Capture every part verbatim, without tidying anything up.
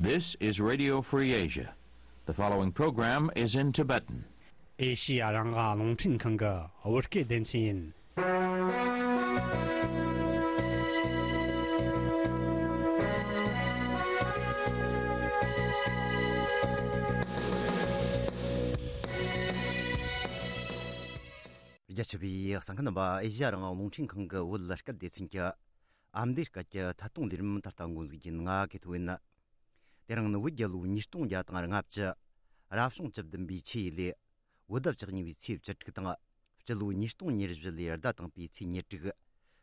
This is Radio Free Asia. The following program is in Tibetan. ཨེ་ཤི་ཡ་རང་དབང་རླུང་འཕྲིན་ཁང་གི་བོད་སྐད་སྡེ་ཚན་ཡིན། རྒྱ་ཆེ་བའི་གསན་མཁན་རྣམ་པ། ཨེ་ཤི་ཡ་རང་དབང་རླུང་འཕྲིན་ཁང་གི་བོད་སྐད་སྡེ་ཚན་གྱི་ཨ་མདོའི་སྐད་ཀྱི་ཐད་གཏོང་ལས་རིམ་ད་ལྟ་འགོ་འཛུགས་རྒྱུ་ཡིན། ང་གི་ཐོ་ཡིན། དེ་རིང་ནི་བོད་རྒྱལ་ལོ་ཉིས་སྟོང་བརྒྱ་དང་ལྔ་བཅུ། རབ་བྱུང་བཅུ་བདུན་པའི་ཆུ་ཡོས་ལོའི་བོད་ཟླ་བཅུ་གཉིས་པའི་ཚེས་བཅུ་དྲུག་དང་། སྤྱི་ལོ་ཉིས་སྟོང་ཉེར་བཞི་ལོའི་ཟླ་དང་པོའི་ཚེས་ཉེར་དྲུག་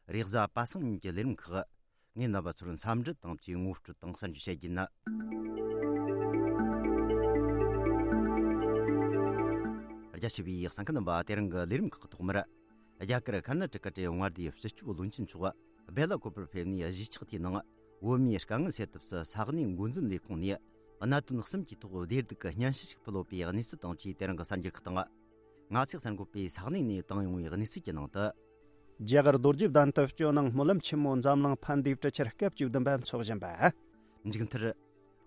རེས་གཟའ་པ་སངས་ཉིན་གྱི་ལས་རིམ་ཁག་ངས་རྣམ་པ་ཚོར་འཚམས་འདྲི་དང་བཅས་ངོ་སྤྲོད་དང་གསར་འགྱུར་བཤད་རྒྱུ་ཡིན། རྒྱ་ཆེ་བའི་གསན་མཁན་རྣམ་པ། དེ་རིང་གི་ལས་རིམ་ཁག་ཐོག་མར། རྒྱ་གར་ཁར་ནཱ་ཊ་ཀ་གྲས་མངའ་སྡེའི་སྤྱི་ཁྱབ་བློན་ཆེན་མཆོག་སྦེ་ལ་ཀོ་པར་ཕེབས་ནས། གཞིས་ཆགས་དེའི་ནང་བོད་མིའི་དཀའ་ངལ་སེལ་ཐབས་སུ་ས་གནས་འགོ་འཛིན་ལས་ཁུངས་ནས་གནད་དོན་གསུམ་གྱི་ཐོག་བདེ་སྡུག་གི་སྙན་ཞུ་ཞིག་ཕུལ་ཡོད་པའི་གནས་ཚུལ་དང་བཅས། དེ་རིང་གི་གསར་འགྱུར་ཁག་དང་། ང་ཚོས་གསར་འགོད་པས་ས་གནས་ནས་བཏང་ཡོང་བའི་གནས་ཚུལ་གྱི་ནང་དུ། རྒྱ་གར་རྡོ་རྗེ་གདན་དུ་སྤྱི་ནང་སྨོན་ལམ་ཆེན་མོ་འཛམ་གླིང་ཕན་བདེའི་གྲུ་ཆར་སྐབས་བཅུ་བདུན་པ་འཚོགས་བཞིན་པ། མཇུག་མཐར།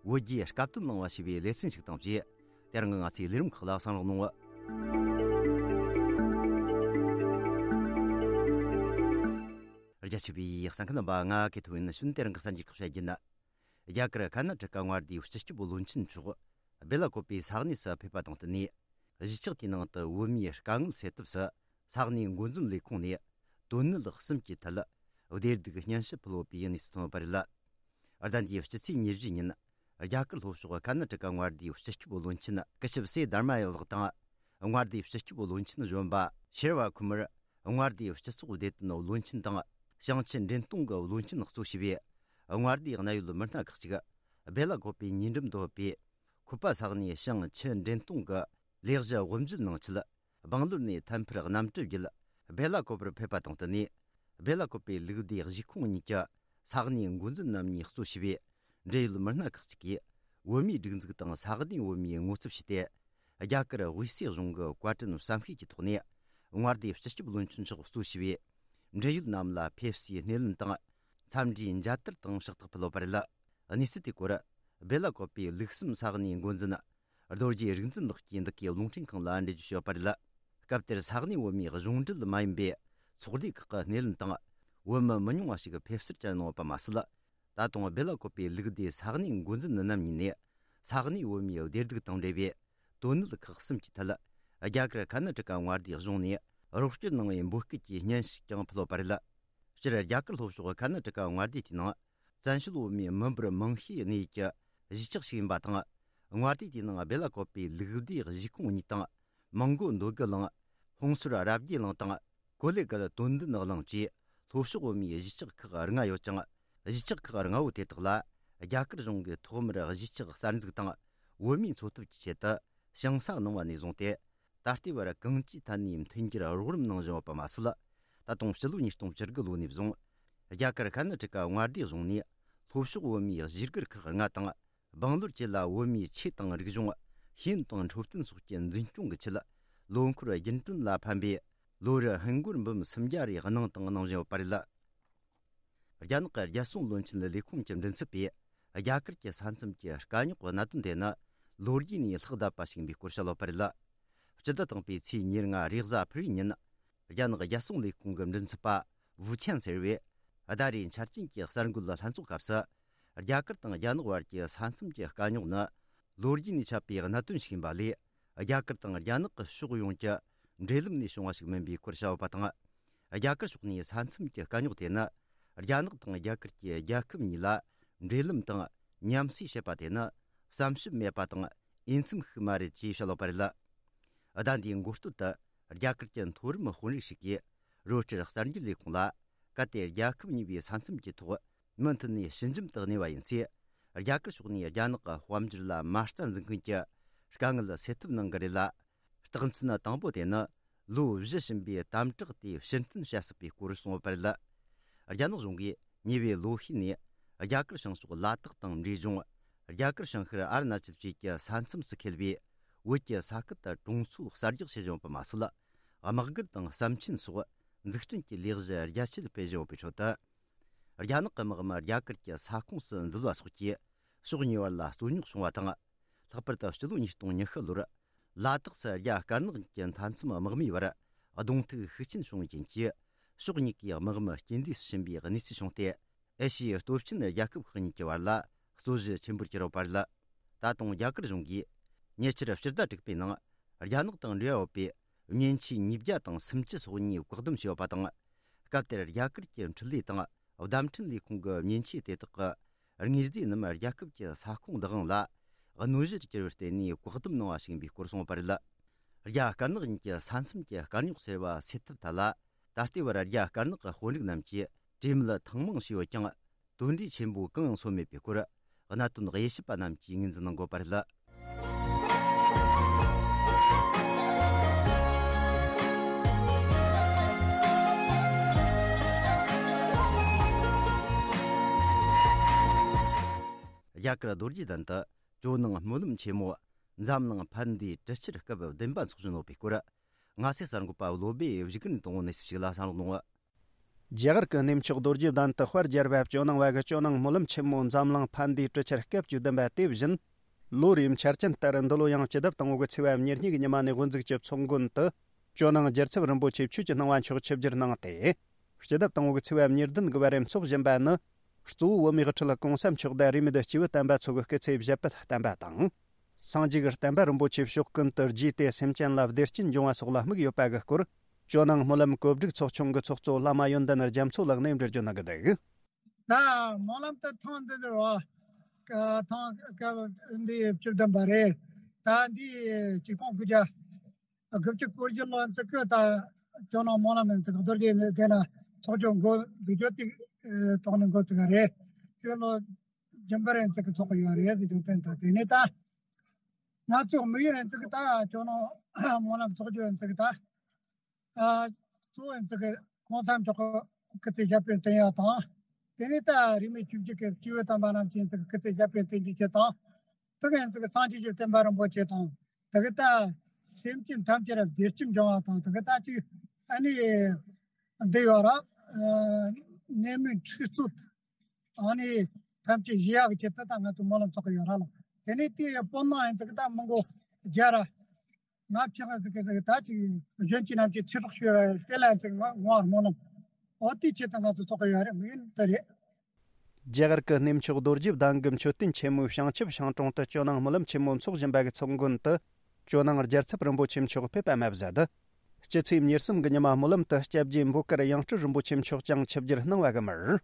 བོད་རྒྱའི་སྐབས་དོན་གླེང་བ་ཞེས་པའི་ལེ་ཚན་ཞིག་དང་བཅས། དེ་རིང་གི་ང་ཚོའི་ལས་རིམ་ཁག་ལ་གསན་རོགས་གནང་། རྒྱ་ཆེ་བའི་གསན་མཁན་རྣམ་པ། ང་གི་ཐོ་ཡིན། ནི་ཤུན་དེ་རིང་གི་གསར་འགྱུར་ཁག་བཤད་རྒྱུ་ཡིན། རྒྱ་གར་ཁར་ནཱ་ཊ་ཀ་མངའ་སྡེའི་སྤྱི་ཁྱབ་བློན་ཆེན་མཆོག་སྦེ་ལ་ཀོ་པའི་ས་གནས་སུ་ཕེབས་པ་དང་བསྟུན་ནས། གཞིས་ཆགས་དེའི་ནང་དུ་བོད་མིའི་དཀའ་ངལ་སེལ་ཐབས་སུ་ས་གནས་འགོ་འཛིན་ལས་ཁུངས་ནས་དོན་གནད་གསུམ་གྱི་ཐད་བདེ་སྡུག་སྙན་ཞུ་ཕུལ་ཡོད་པའི་གནས་ཚུལ་ཐོན་ཡོད་པ་རེད། ཟླ་འདིའི་སྤྱི་ཚེས་ཉེར་བཞི་ཉིན། རྒྱ་གར་ལྷོ་ཕྱོགས་ཁར་ནཱ་ཊ་ཀ་མངའ་སྡེའི་སྤྱི་ཁྱབ་བློན་ཆེན་ཀི་ཤབ་སེ་དྷར་མ་ཡ་ལགས་དང་། མངའ་སྡེའི་སྤྱི་ཁྱབ་བློན་ཆེན་གཞོན་པ་ཤེར་བ་ཁུ་མར། མངའ་སྡེའི་སྤྱི་ཚོགས་བདེ་དོན་བློན་ཆེན་དང་། ཞིང་ཆུ་འདྲེན་གཏོང་གི་བློན་ཆེན་གཙོ་བྱས་པའི་མངའ་སྡེའི་གནད་ཡོད་མི་སྣ་ཁག་ཅིག་སྦེ་ལ་ཀོ་པའི་ཉེ་འགྲམ་དུ་ཡོད་པའི་ཁུ་པ་ས་གནས་ཞིང་ཆུ་འདྲེན་གཏོང་གི་ལས་གཞི་དབུ་འབྱེད་གནང་ཆེད། སྦང་ལོར་ནས་ཐད་འཕུར་གནམ་གྲུ་བརྒྱུད་སྦེ་ལ་ཀོ་པར་ཕེབས་པ་དང་བསྟུན་ནས། སྦེ་ལ་ཀོ་པའི་ལུགས་བདེ་གཞིས་ཁོངས་གཉིས་ཀྱི་ས་གནས་འགོ་འཛིན་རྣམ་གཉིས་གཙོ་བྱས་པའི་འབྲེལ་ཡོད་མི་སྣ་ཁག་ཅིག་གིས། བོད་མིའི་སྒྲིག་འཛུགས་དང་ས་གནས་བོད་མིའི་ངོ་ཚབ་བྱས་ཏེ། རྒྱ་གར་དབུས་སའི་གཞུང་གི་བཀའ་དྲིན་བསམ་ཤེས་ཀྱི་ཐོག་ནས། མངའ་སྡེའི་སྤྱི་ཁྱབ་བློན་ཆེན་མཆོག་གཙོ་བྱས་པའི་འབྲེལ་ཡོད་རྣམས་ལ་ཕེབས་བསུའི་སྣེ་ལེན་དང་། འཚམས་འདྲིའི་མཇལ་དར་དང་ཕྱག་རྟགས་ཕུལ་ཡོད་པ་རེད། གནས་ཚུལ་དེའི་སྐོར། སྦེ་ལ་ཀོ་པའི་ལུགས་གསུམ་ས་གནས་འགོ་འཛིན་རྡོ་རྗེ་རིག་འཛིན་ལགས་ཀྱིས་འདི་གའི་རླུང་འཕྲིན་ཁང་ལ་འགྲེལ་བརྗོད་ཞུས་པ་རེད། སྐབས་དེར་ས་གནས་བོད་མིའི་གཞུང་འབྲེལ་མ་ཡིན་པའི་ཚོགས་སྡེ་ཁག་གི་སྣེ་ལེན་དང་། བོད་མི་མི་ཉུང་བ་ཞིག་ཕེབས་བསུར་བཅར་གནང་ཡོད་པ་མ་ཟད། ད་དུང་སྦེ་ལ་ཀོ་པའི་ལུགས་བདེ་ས་གནས་འགོ་འཛིན་རྣམ་གཉིས་ནས། ས་གནས་བོད་མིའི་བདེ་སྡུག་དང་འབྲེལ་བའི་དོན་གནད་ཁག་གསུམ་གྱི་ཐད། རྒྱ་གར་ཁར་ནཱ་ཊ་ཀ་མངའ་སྡེའི་གཞུང་ནས་རོགས་སྐྱོར་གནང་བའི་འབོད་སྐུལ་གྱི་སྙན་ཞུ་ཀྱང་ཕུལ་ཡོད་པ་རེད། སྤྱིར་རྒྱ་གར་ལྷོ་ཕྱོགས་ཁར་ནཱ་ཊ་ཀ་མངའ་སྡེ་དེའི་ནང་། བཙན་བྱོལ་བོད་མིའི་མི་འབོར་མང་ཤོས་གནས་ཡུལ་གྱི་གཞིས་ཆགས་ཤིག་ཡིན་པ་དང་། མངའ་སྡེ་དེའི་ནང་སྦེ་ལ་ཀོ་པའི་ལུགས་བདེ་གཞིས་ཁོངས་གཉིས་དང་། མོན་གྷོ་འདོད་རྒུ་གླིང་། ཧོང་སོར་རབ་རྒྱས་གླིང་དང་། ཀོ་ལེ་གལ་དོན་ལྡན་གླིང་བཅས་ལྷོ་ཕྱོགས་བོད་མིའི་གཞིས་ཆགས་ཁག་ལྔ་ཡོད་ཅིང་། གཞིས་ཆགས་ཁག་ལྔ་བོ་དེ་དག་ལ་རྒྱ་གར་གཞུང་གིས་ཐོག་མར་གཞིས་ཆགས་གསར་འཛུགས་དང་བོད་མིའི་འཚོ་ཐབས་ཀྱི་ཆེད་དུ་ཞིང་ས་གནང་བ་ནས་བཟུང་སྟེ། ད་ལྟའི་བར་གང་ཅིའི་ཐད་ནས་མཐུན་འགྱུར་རོགས་རམ་གནང་བཞིན་ཡོད་པ་མ་ཟད། ད་དུང་ཕྱི་ལོ་ཉིས་སྟོང་བཅུ་དགུ་ལོ་ནས་བཟུང་། རྒྱ་གར་ཁར་ནཱ་ཊ་ཀ་མངའ་སྡེའི་གཞུང་ནས་ལྷོ་ཕྱོགས་བོད་མིའི་གཞིས་སྒར་ཁག་ལྔ་དང་། སྦང་ལོར་བཅས་ལ་བོད་མིའི་ཆོས་དང་རིག་གཞུང་། ཤེས་ཡོན་དང་འཕྲོད་བསྟེན་སོགས་ཀྱི་འཛིན་སྐྱོང་གི་ཆེད། ལོ་འཁོར་རྒྱུན་གྲོན་ལ་ཕན་པའི་ལོ་རེར་ཧིན་སྒོར་འབུམ་སུམ་བརྒྱ་རེ་གནང་དང་གནང་བཞིན་ཡོད་པ་རེད། རྒྱ་ནག་གི་རྒྱལ་སྲུང་བློན་ཆེན་ལས་ཁུངས་ཀྱི་མགྲིན་ཚབ་པས། རྒྱ་གར་གྱི་ས་མཚམས་ཀྱི་དཀའ་རྙོག་གི་གནད་དོན་དེ་ནི་ལོ་རྒྱུས་ནས་ལྷག་བསྡད་པ་ཞིག་ཡིན་པའི་སྐོར་བཤད་ཡོད་པ་རེད། སྤྱི་ཟླ་དང་པོའི་ཚེས་ཉེར་ལྔ་རེས་གཟའ་ཕུར་བུའི་ཉིན། རྒྱ་ནག་རྒྱལ་སྲུང་ལས་ཁུངས་ཀྱི་མགྲིན་ཚབ་པ་ཝུ་ཆན་ཟེར་བས། ཟླ་རེའི་འཆར་ཅན་གྱི་གསར་འགོད་ལྷན་ཚོགས་སྐབས་སུ། རྒྱ་གར་དང་རྒྱ་ནག་བར་གྱི་ས་མཚམས་ཀྱི་དཀའ་རྙོག་ནི། ལོ་རྒྱུས་ནས་ཆད་པའི་གནད་དོན་ཞིག་ཡིན་པ་ལས། རྒྱ་གར་དང་རྒྱ་ནག་གི་ཕྱོགས་ཡོངས་ཀྱི་འབྲེལ་ལམ་ནས་བྱུང་བ་ཞིག་མིན་པའི་སྐོར་བཤད་ཡོད་པ་དང་། རྒྱ་གར་ཕྱོགས་ནས་ས་མཚམས་ཀྱི་དཀའ་རྙོག་དེ་ནི། རྒྱ་ནག་དང་རྒྱ་གར་གྱི་རྒྱལ་ཁབ་གཉིས་ལ་འབྲེལ་ལམ་དང་མཉམ་བསྲེས་བྱེད་པ་དེ་ནི། བསམ་ཞིབ་མེད་པ་དང་འོས་འཚམ་ཞིག་མ་རེད་ཅེས་བཤད་ཡོད་པ་རེད། ཟླ་འདིའི་འགོ་སྟོད་དུ། རྒྱ་གར་གྱི་མཐོ་རིམ་དཔོན་རིགས་ཤིག་གིས། རོའི་ཊར་གསར་འགྱུར་ལས་ཁུངས་ལ། གལ་ཏེ་རྒྱལ་ཁབ་གཉིས་པོའི་ས་མཚམས་ཀྱི་ཐོག་མུ་མཐུད་ནས་ཞི་འཇམ་དུ་གནས་པ་ཡིན་ཚེ། རྒྱ་གར་ཕྱོགས་ནས་རྒྱ་ནག་གི་དཔལ་འབྱོར་ལ་མ་རྩ་འཛིན་མཁན་གྱི་དཀའ་ངལ་སེལ་ཐབས་གནང་གི་རེད་ལ། རྟགས་མཚན་དང་པོ་དེ་ནི། ལོ་བཞི་ཕྱིན་པའི་དམ་དྲག་དེ་ཕྱིར་འཐེན་བྱ་སྲིད་པའི་སྐོར་གསུངས་ཡོད་པ་རེད། རྒྱ་ནག་གཞུང་གིས་ཉེ་བའི་ལོ་ཤས་ནས། རྒྱ་གར་བྱང་ཕྱོགས་ལ་དྭགས་དང་འབྲས་ལྗོངས། རྒྱ་གར་བྱང་ཤར་ཨ་རུ་ན་ཅལ་བཅས་ཀྱི་ས་མཚམས་སུ་འཁེལ་བའི་བོད་ཀྱི་ས་ཁུལ་དུ་གྲོང་ཚོ་གསར་རྒྱག་བྱེད་བཞིན་ཡོད་པ་མ་ཟད། དམག་སྒར་དང་ཟམ་ཆེན་སོགས་འཛུགས་སྐྲུན་གྱི་ལས་གཞི་རྒྱ་ཆེར་སྤེལ་བཞིན་ཡོད་པའི་ཁྲོད་དུ། རྒྱ་ནག་གི་དམག་མི་རྒྱ་གར་གྱི་ས་ཁོངས་སུ་འཛུལ་བ་སོགས་ཀྱིས། ཕྱོགས་གཉིས་བར་ལ་རྩོད་རྙོག་བྱུང་བ་དང་། ལྷག་པར་དུ་སྤྱི་ལོ་ཉིས་སྟོང་ཉི་ཤུ་ལོར་ལ་དྭགས་སུ་རྒྱ་དཀར་ནག་གཉིས་ཀྱི་མཐའ་མཚམས་དམག་མིའི་བར་གདོང་ཐུག་ཤུགས་ཆེན་བྱུང་བའི་རྐྱེན་གྱིས། ཕྱོགས་གཉིས་ཀའི་དམག་མི་རྐྱེན་འདས་སུ་ཕྱིན་པའི་གནས་ཚུལ་བྱུང་སྟེ། ཨེ་ཤི་ཡའི་སྟོབས་ཆེན་རྒྱལ་ཁབ་ཁག་གཉིས་ཀྱི་བར་ལ་རྩོད་གཞི་ཆེན་པོར་གྱུར་ཡོད་པ་རེད། ད་དུང་རྒྱ་གར་གཞུང་གིས་ཉེ་ཆར་ཕྱི་ཟླ་དྲུག་པའི་ནང་རྒྱ་ནག་དང་འབྲེལ་བ་ཡོད་པའི་མཉེན་ཆས་ཉིས་བརྒྱ་དང་སུམ་ཅུ་སོ་གཉིས་བཀག་སྡོམ་བྱས་ཡོད་པ་དང་། སྐབས་དེར་རྒྱ་གར་གྱི་འཕྲུལ་ལས་དང་བརྡ་འཕྲིན་ལས་ཁུངས་ཀྱི་མཉེན་ཆས་དེ་དག་གི་དངོས་རྫས་རྣམས་རྒྱལ་ཁབ་ཀྱི་ས་ཁོངས་བདག་དབང་ལ་གནོད་གཞིར་གྱུར་བར་བརྟེན་ནས་བཀག་སྡོམ་གནང་བ་ཞིག་ཡིན་པའི་སྐོར་གསུངས་པ་རེད། རྒྱ་དཀར་ནག་གཉིས་ཀྱི་ས་མཚམས་ཀྱི་དཀའ་རྙོག་སེལ་བ་སེལ་ཐབས་ཐད་ལ། ད་ལྟའི་བར་རྒྱ་དཀར་ནག་གི་དཔོན་རིགས་རྣམས་ཀྱིས་གྲོས་མོལ་ཐེངས་མང་བྱས་ཡོད་ཀྱང་། དོན་འབྲས་ཆེན་པོ་གང་ཡང་སོན་མེད་པའི་སྐོར། གནད་དོན་དབྱེ་ཞིབ་པ་རྣམས་ཀྱིས་ངོས་འཛིན་གནང་དགོས་པ་རེད། རྒྱ་གར་རྡོ་རྗེ་གདན་དུ་ཇོ་ནང་སྨོན་ལམ་ཆེན་མོ་འཛམ་གླིང་ཕན་བདེའི་གྲུ་ཆར་སྐབས་བདུན་པ་འཚོགས་བཞིན་ཡོད་པའི་སྐོར། ང་ཚོའི་གསར་འགོད་པ་བློ་སྦེ་བཞུགས་སྒར་ནས་དང་པོ་གནས་ཚུལ་ཞིག་ལ་གསན་རོགས་གནང་། རྒྱ་གར་གྱི་གནས་མཆོག་རྡོ་རྗེ་གདན་དུ་དཔལ་རྒྱལ་བ་ཇོ་ནང་བ་གི་ཇོ་ནང་སྨོན་ལམ་ཆེན་མོ་འཛམ་གླིང་ཕན་བདེའི་གྲུ་ཆར་སྐབས་བཅུ་བདུན་པ་དེ་བཞིན། ལོ་རེའི་འཆར་ཅན་ལྟར་འདི་ལོ་ཡང་སྤྱི་ཟླ་དང་པོ་གི་ཚེས་པ་ཉེར་གཉིས་ཀྱི་ཉི་མ་ནས་དབུ་འཛུགས་ཀྱི་ཚོགས་མགོན་དུ། ཇོ་ནང་རྒྱལ་ཚབ་རིན་པོ་ཆེ་ཆོས་ཀྱི་སྣང་བ་མཆོག་ཆིབས་བསྒྱུར་གནང་སྟེ། སྤྱི་ཟླ་དང་པོ་གི་ཚེས་པ་ཉེར་བདུན་གྱི་བར་འཚོགས་བཞིན་པ་ནི། གཙོ་བོ་བོད་མིའི་ཁྲི་ལ་གོང་ས་མཆོག་དང་རེས་མོས་སྐྱེས་བུ་དམ་པ་ཚོ་གི་སྐུ་ཚེ་བཞད་པའི་བསྟན་པ་དང་། སངས་རྒྱས་ཀྱི་བསྟན་པ་རིན་པོ་ཆེ་ཕྱོགས་ཀུན་ཏུ་རྒྱས་ཏེ་སེམས་ཅན་ལ་བདེ་སྐྱིད་འབྱུང་བ་སོགས་ལ་དམིགས་ཡོད་པ་གི་སྐོར། ཇོ་ནང་སྨོན་ལམ་གོ་སྒྲིག་ཚོགས་ཆུང་གི་ཚོགས་གཙོ་བླ་མ་ཡོན་ཏན་རྒྱ་མཚོ་ལགས་ནས་འགྲེལ་བརྗོད་གནང་གི་འདུག། ད་སྨོན་ལམ་དེ་ཐེངས་འདི་འདིར་བ། ཐེངས་སྐབས་འདི་བཅུ་བདུན་པ་རེད། ད་འདི་ཆིག་སྟོང་དགུ་བརྒྱ་དགུ་བཅུ་གོ་བཞི་ལོ་ཙི་གི་ད་ཇོ་ནང་སྨོན་ལམ་ཡིན་ཙི་གི་རྡོ་རྗེ་གདན་ན་ཚོགས་ཆུང་འགོ་འཛུགས་རྒྱུ་དེ་ཐོག་ནས་འགོ་ཙི་ག་རེད། དེ་ལོ་རྒྱུན་པར་ཡིན་ཙི་གི་ཚོགས་གི་ཡོད་རེད་ཟེར་རྒྱུ་དེ། ད་དེ་ནས་ད་ང་ཚོ་དམིགས་ཡུལ་ཡིན་ཙི་གི་ད་ཇོ་ནང་སྨོན་ལམ་ཚོགས་རྒྱུ་ཡིན་ཙི་གི་ད། ཨ། གཙོ་བོ་ཡིན་ཙི་གི་གོང་ས་མཆོག་གི་སྐུ་ཚེ་ཞབས་པད་བརྟན་ཡག་དང་། དེ་ནས་ད་རིས་མེད་ཆོས་བརྒྱུད་ཀྱི་སྐྱེས་བུ་དམ་པ་རྣམས་ཀྱི་ཡིན་ཙི་གི་སྐུ་ཚེ་ཞབས་པད་བརྟན་གྱི་ཆེད་དང་། དེ་ག་ཡིན་ཙི་གི་སངས་རྒྱས་ཀྱི་བསྟན་པ་རིན་པོ་ཆེ་དང་། དེ་གི་ད་སེམས་ཅན་ཐམས་ཅད་ལ་བདེ་སྐྱིད་འབྱུང་བ་དང་། དེ་གི་ད་ཅིག་ཨ་ནི་འདི་ཡོད་ར། ཨ། ནད་མུག་འཁྲུག་རྩོད་ཨ་ནི་ཐམས་ཅད་ཞི་ཡག་གི་ཆེད་དུ་ད་ང་ཚོ་སྨོན་ལམ་ཚོགས་གི་ཡོད་ར་ལ། དེ་ནས་དེའི་སྤོ་ནང་ཡིན་ཙི་གི་ད་མི་མགོ་བརྒྱ་ར། ང་ཕྱིར་ཟེར་གི་ཟེར་གི་ད་ཅིག་གཞོན་སྐྱེས་རྣམས་ཀྱིས་ཚེ་སྲོག་ཤོར་བ་དེ་ལ་ཟེར་ང་ངོ་བར་སྨོན་ལམ། འོ་དེའི་ཆེད་དུ་ང་ཚོ་ཚོགས་གི་ཡོད་རེད། དམིགས་ཡུལ་འདི་རེད། རྒྱ་གར་གྱི་གནས་མཆོག་རྡོ་རྗེ་གདན་གྱི་མཆོད་རྟེན་ཆེན་མོའི་བྱང་ཆུབ་ཤིང་དྲུང་དུ་ཇོ་ནང་སྨོན་ལམ་ཆེན་མོ་འཚོགས་བཞིན་པ་གི་ཚོགས་མགོན་དུ། ཇོ་ནང་རྒྱལ་ཚབ་རིན་པོ་ཆེ་མཆོག་ཕེབས་པ་མ་ཟད། སྤྱི་ཚེས་ཉེར་གསུམ་གྱི་ཉི་མ་སྨོན་ལམ་དུ་སྐྱབས་རྗེ་འབོད་དཀར་ཡང་སྤྲུལ་རིན་པོ་ཆེ་མཆོག་ཀྱང་ཆིབས་བསྒྱུར་གནང་བ་གི་མར།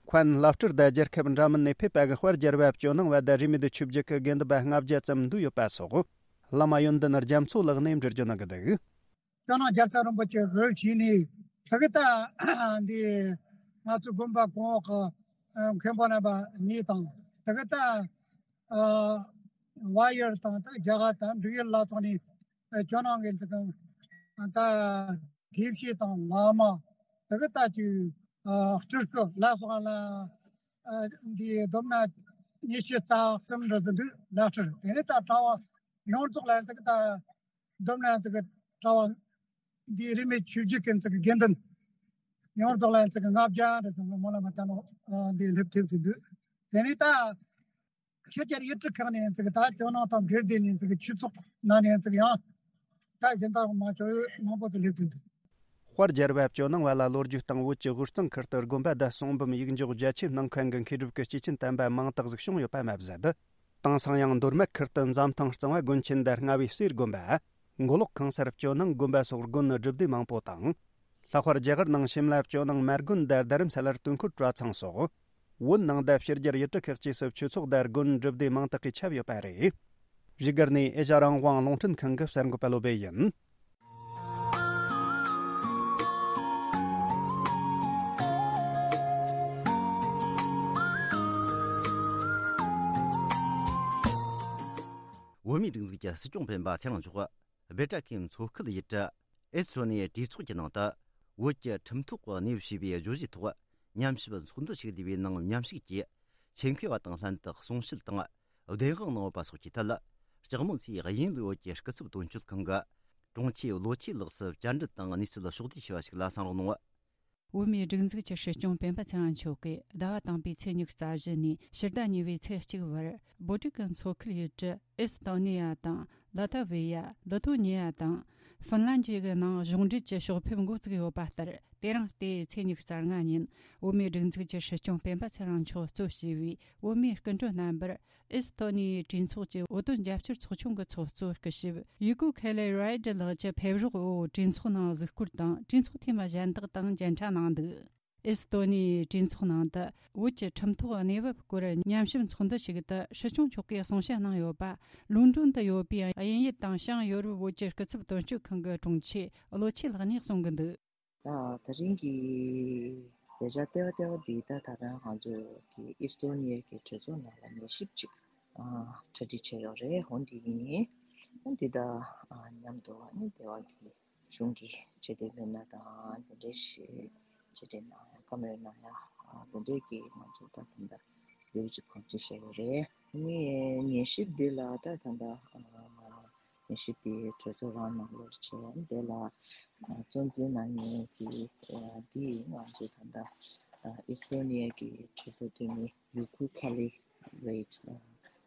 མཁན་བླ་སྤྲུལ་དང་རྒྱལ་ཁབ་འདྲ་མིན་ནས་ཕེབས་པ་གི་དཔལ་རྒྱལ་བ་ཇོ་ནང་བ་དང་རིས་མེད་ཆོས་བརྒྱུད་ཀྱི་དགེ་འདུན་པ་ལྔ་བརྒྱ་ཙམ་འདུས་ཡོད་པ་སོགས། བླ་མ་ཡོན་ཏན་རྒྱ་མཚོ་ལགས་ནས་འགྲེལ་བརྗོད་གནང་གི་འདུག། ཇོ་ནང་རྒྱལ་ཚབ་རིན་པོ་ཆེ་གིས་བྱས་ནས་དེ་གི་ད་འདི་ང་ཚོ་དགོན་པ་གོང་འོག་གི་མཁན་པོ་རྣམ་པ་གཉིས་དང་། དེ་གི་ད་ཨ་བལ་ཡུལ་དང་ད་རྒྱ་གར་དང་འབྲུག་ཡུལ་ལ་སོགས་ནས་ཨ་ཇོ་ནང་གི་འདི་གང་ད་དགེ་བཤེས་དང་བླ་མ། དེ་གི་ད་ཅིག་ཨ་སྤྲུལ་སྐུ་ལ་སོགས་ལ་ཨ་འདི་སྡོམ་ན་ཉི་ཤུ་རྩ་གསུམ་འདྲ་ཟིག་འདུག། བླ་སྤྲུལ། དེ་ནས་ད་གྲྭ་བ་ཡོངས་རྫོགས་ལ་ཡིན་ཙི་གི་ད་སྡོམ་ན་ཡིན་ཙི་གི་གྲྭ་བ་འདི་རིས་མེད་ཆོས་བརྒྱུད་ཀྱི་ཡིན་ཙི་གི་དགེ་འདུན་ཡོངས་རྫོགས་ལ་ཡིན་ཙི་གི་ལྔ་བརྒྱ་འདྲ་ཟིག་སྨོན་ལམ་བཏབ་ནོ་འདི་སླེབས་ཐེབས་ཟིག་འདུག། དེ་ནས་ད་ཕྱི་རྒྱལ་ཡུལ་གྲུ་ཁག་ནས་ཡིན་ཙི་གི་ད་ཇོ་ནང་དང་འབྲེལ་བསྡད་ནས་ཡིན་ཙི་གི་ཆོས་ཚོགས་ནང་ནས་ཡིན་ཙི་གི་ཡང་ད་གཞན་དག་མང་ཆོག་མང་པོ་ཟིག་སླེབས་ཟིག་འདུག། དཔལ་རྒྱལ་བ་ཇོ་ནང་བ་ལ་ལོ་རྒྱུས་དང་བོད་ཀྱི་དབུས་གཙང་ཁུལ་དུ་དགོན་པ་བརྡ་གསུང་འབུམ་ཡིག་འཇོག་རྒྱ་ཆེ་གནང་མཁན་གྱི་མཁས་གྲུབ་ཀྱི་སྐྱེས་ཆེན་དམ་པ་མང་དག་ཟིག་བྱུང་ཡོད་པ་མ་ཟད། དེང་སང་ཡང་མདོ་སྨད་ཁུལ་དུ་འཛམ་ཐང་གཙང་བ་དགོན་ཆེན་དང་རྔ་བའི་གསེར་དགོན་པ། མགོ་ལོག་ཁང་གསར་ཇོ་ནང་དགོན་པ་སོགས་དགོན་སྒྲུབ་སྡེ་མང་པོ་དང་། ལྷག་པར་རྒྱ་གར་ནང་ཤིམ་ལ་ཇོ་ནང་མ་དགོན་དང་རྡ་རམ་ས་ལར་དུས་འཁོར་གྲྭ་ཚང་སོགས། བོད་ནང་དང་ཕྱི་རྒྱལ་ཡུལ་གྲུ་ཁག་བཅས་སུ་ཆོས་ཚོགས་དང་དགོན་སྒྲུབ་སྡེ་མང་དག་གིས་ཁྱབ་ཡོད་པ་རེད། བཞུགས་སྒར་ནས་ཨེ་ཤ་རང་དབང་རླུང་འཕྲིན་ཁང་གི་གསར་འགོད་པ་བློ་སྦེ་ཡིན། བོད་མིའི་སྒྲིག་འཛུགས་ཀྱི་སྲིད་སྐྱོང་སྤེན་པ་ཚེ་རིང་མཆོག་སྦེལ་ཀྲ་ཀིའི་མཚོ་ཁུལ་ཡུལ་གྲུ་ཨེ་སི་ཐོ་ནི་ཡའི་གྲོས་ཚོགས་ཀྱི་ནང་དུ། བོད་ཀྱི་ཁྲིམས་ཐོག་གནས་བབ་ཞེས་པའི་བརྗོད་གཞིའི་ཐོག་མཉམ་ཞིབ་ཚོགས་འདུ་ཞིག་བསྡུས་པའི་ནང་མཉམ་ཞུགས་ཀྱིས། ཆེད་མཁས་པ་དང་ལྷན་དུ་གསུང་བཤད་དང་བདེན་དཔང་གནང་ཡོད་པ་སོགས་ཀྱི་ཐད། ལྕགས་མོ་མཚོའི་དབྱིན་ལུའུ་བོད་ཀྱི་སྐུ་ཚབ་དོན་གཅོད་ཁང་གི་དྲུང་ཆེ་བློ་ཆོས་ལགས་སུ་བཅར་འདྲི་དང་གནས་ཚུལ་ཕྱོགས་བསྡུས་བྱས་པ་ཞིག་ལ་གསན་རོགས་གནང་། བོད་མིའི་སྒྲིག་འཛུགས་ཀྱི་སྲིད་སྐྱོང་སྤེན་པ་ཚེ་རིང་མཆོག་གིས་ཟླ་བ་དང་པོའི་ཚེས་ཉི་ཤུ་རྩ་བཞི་ནས་ཕྱི་ཟླ་གཉིས་པའི་ཚེས་གཅིག་བར་སྦོ་ཊི་ཀན་མཚོ་ཁུལ་ཡུལ་གྲུ་ཨེ་སི་ཐོ་ནི་ཡ་དང་། ལ་ཐ་ཝི་ཡ། ལི་ཐོ་ནི་ཡ་དང་། ཧྥིན་ལན་བཅས་ཀྱི་ནང་གཞུང་འབྲེལ་གྱི་ཕྱོགས་ཕེབས་འགོ་བཙུགས་ཡོད་པ་ལྟར། དེ་རིང་སྟེ་ཚེས་ཉི་ཤུ་རྩ་ལྔ་ཉིན་བོད་མིའི་སྒྲིག་འཛུགས་ཀྱི་སྲིད་སྐྱོང་སྤེན་པ་ཚེ་རིང་མཆོག་གཙོས་བྱས་པའི་བོད་མིའི་སྐུ་མགྲོན་རྣམ་པར་ཨེ་སི་ཐོ་ནི་ཡའི་གྲོས་ཚོགས་ཀྱི་བོད་དོན་རྒྱབ་སྐྱོར་ཚོགས་ཆུང་གི་ཚོགས་གཙོ་སྐུ་ཞབས་ཡུ་ཀུ་ཁེ་ལེ་རའེ་ཌི་ལགས་ཀྱི་ཕེབས་རོགས་འོག་གྲོས་ཚོགས་ནང་གཟིགས་སྐོར་དང་། གྲོས་ཚོགས་འཐུས་མི་གཞན་དག་དང་མཇལ་འཕྲད་གནང་འདུག་ཨེ་སི་ཐོ་ནི་ཡའི་གྲོས་ཚོགས་ནང་དུ་བོད་ཀྱི་ཁྲིམས་ཐོག་གནས་བབ་སྐོར་ཉམས་ཞིབ་ཚོགས་འདུ་ཞིག་ཏུ་སྲིད་སྐྱོང་མཆོག་གིས་གསུང་བཤད་གནང་ཡོད་པ། ལོན་ཌོན་དུ་ཡོད་པའི་དབྱིན་ཡུལ་དང་བྱང་ཡོ་རོབ་བོད་ཀྱི་སྐུ་ཚབ་དོན་གཅོད་ཁང་གི་དྲུང་ཆེ་བློ་ཆོས་ལགས་ནས་གསུང་གི་འདུག་ད་ད་རིང་གི་མཛད་འཆར་ལྟེ་བ་ལྟེ་བ་འདི་ད་ད་ལྟ་ང་ཚོ་གི་ཨི་སི་ཐོ་ནི་ཡ་གི་གྲོས་ཚོགས་ནང་ལ་ཉན་ཞིབ་ཅིག་ཨ་གྲ་སྒྲིག་བྱས་ཡོད་རེད། འོ་འདི་ཡིན། འོ་འདི་ད་ཨ་མཉམ་དུ་ཨ་ནི་ལྟེ་བ་གི་གཞུང་གི་ཆེ་བསྟོད་མི་སྣ་དང་དེ་འདྲའི་ཞིག་ཆེ་བསྟོད་གནང་ཡ་བཀའ་མོལ་གནང་ཡ་ཨ་དེ་འདྲའི་གི་ང་ཚོ་ད་ད་ལྟ་ལེའུ་གཅིག་གང་ཅི་བཤད་ཡོད་རེད། ཨ་ནི་ཉན་ཞིབ་འདི་ལ་ད་ད་ལྟ་ཨ། ཉན་ཞིབ་དེ་གྲོས་ཚོགས་རང་ནང་ལོགས་བྱས། དེ་ལ་ཨ་གཙོ་འཛིན་གནང་མཁན་གྱི་ཨ་དེ་ང་ཚོ་ད་ལྟ་ཨ་ཨི་སི་ཐོ་ནི་ཡ་གི་གྲོས་ཚོགས་འཐུས་མི་ཡུ་ཀུ་ཁ་ལི་རེད། ཨ་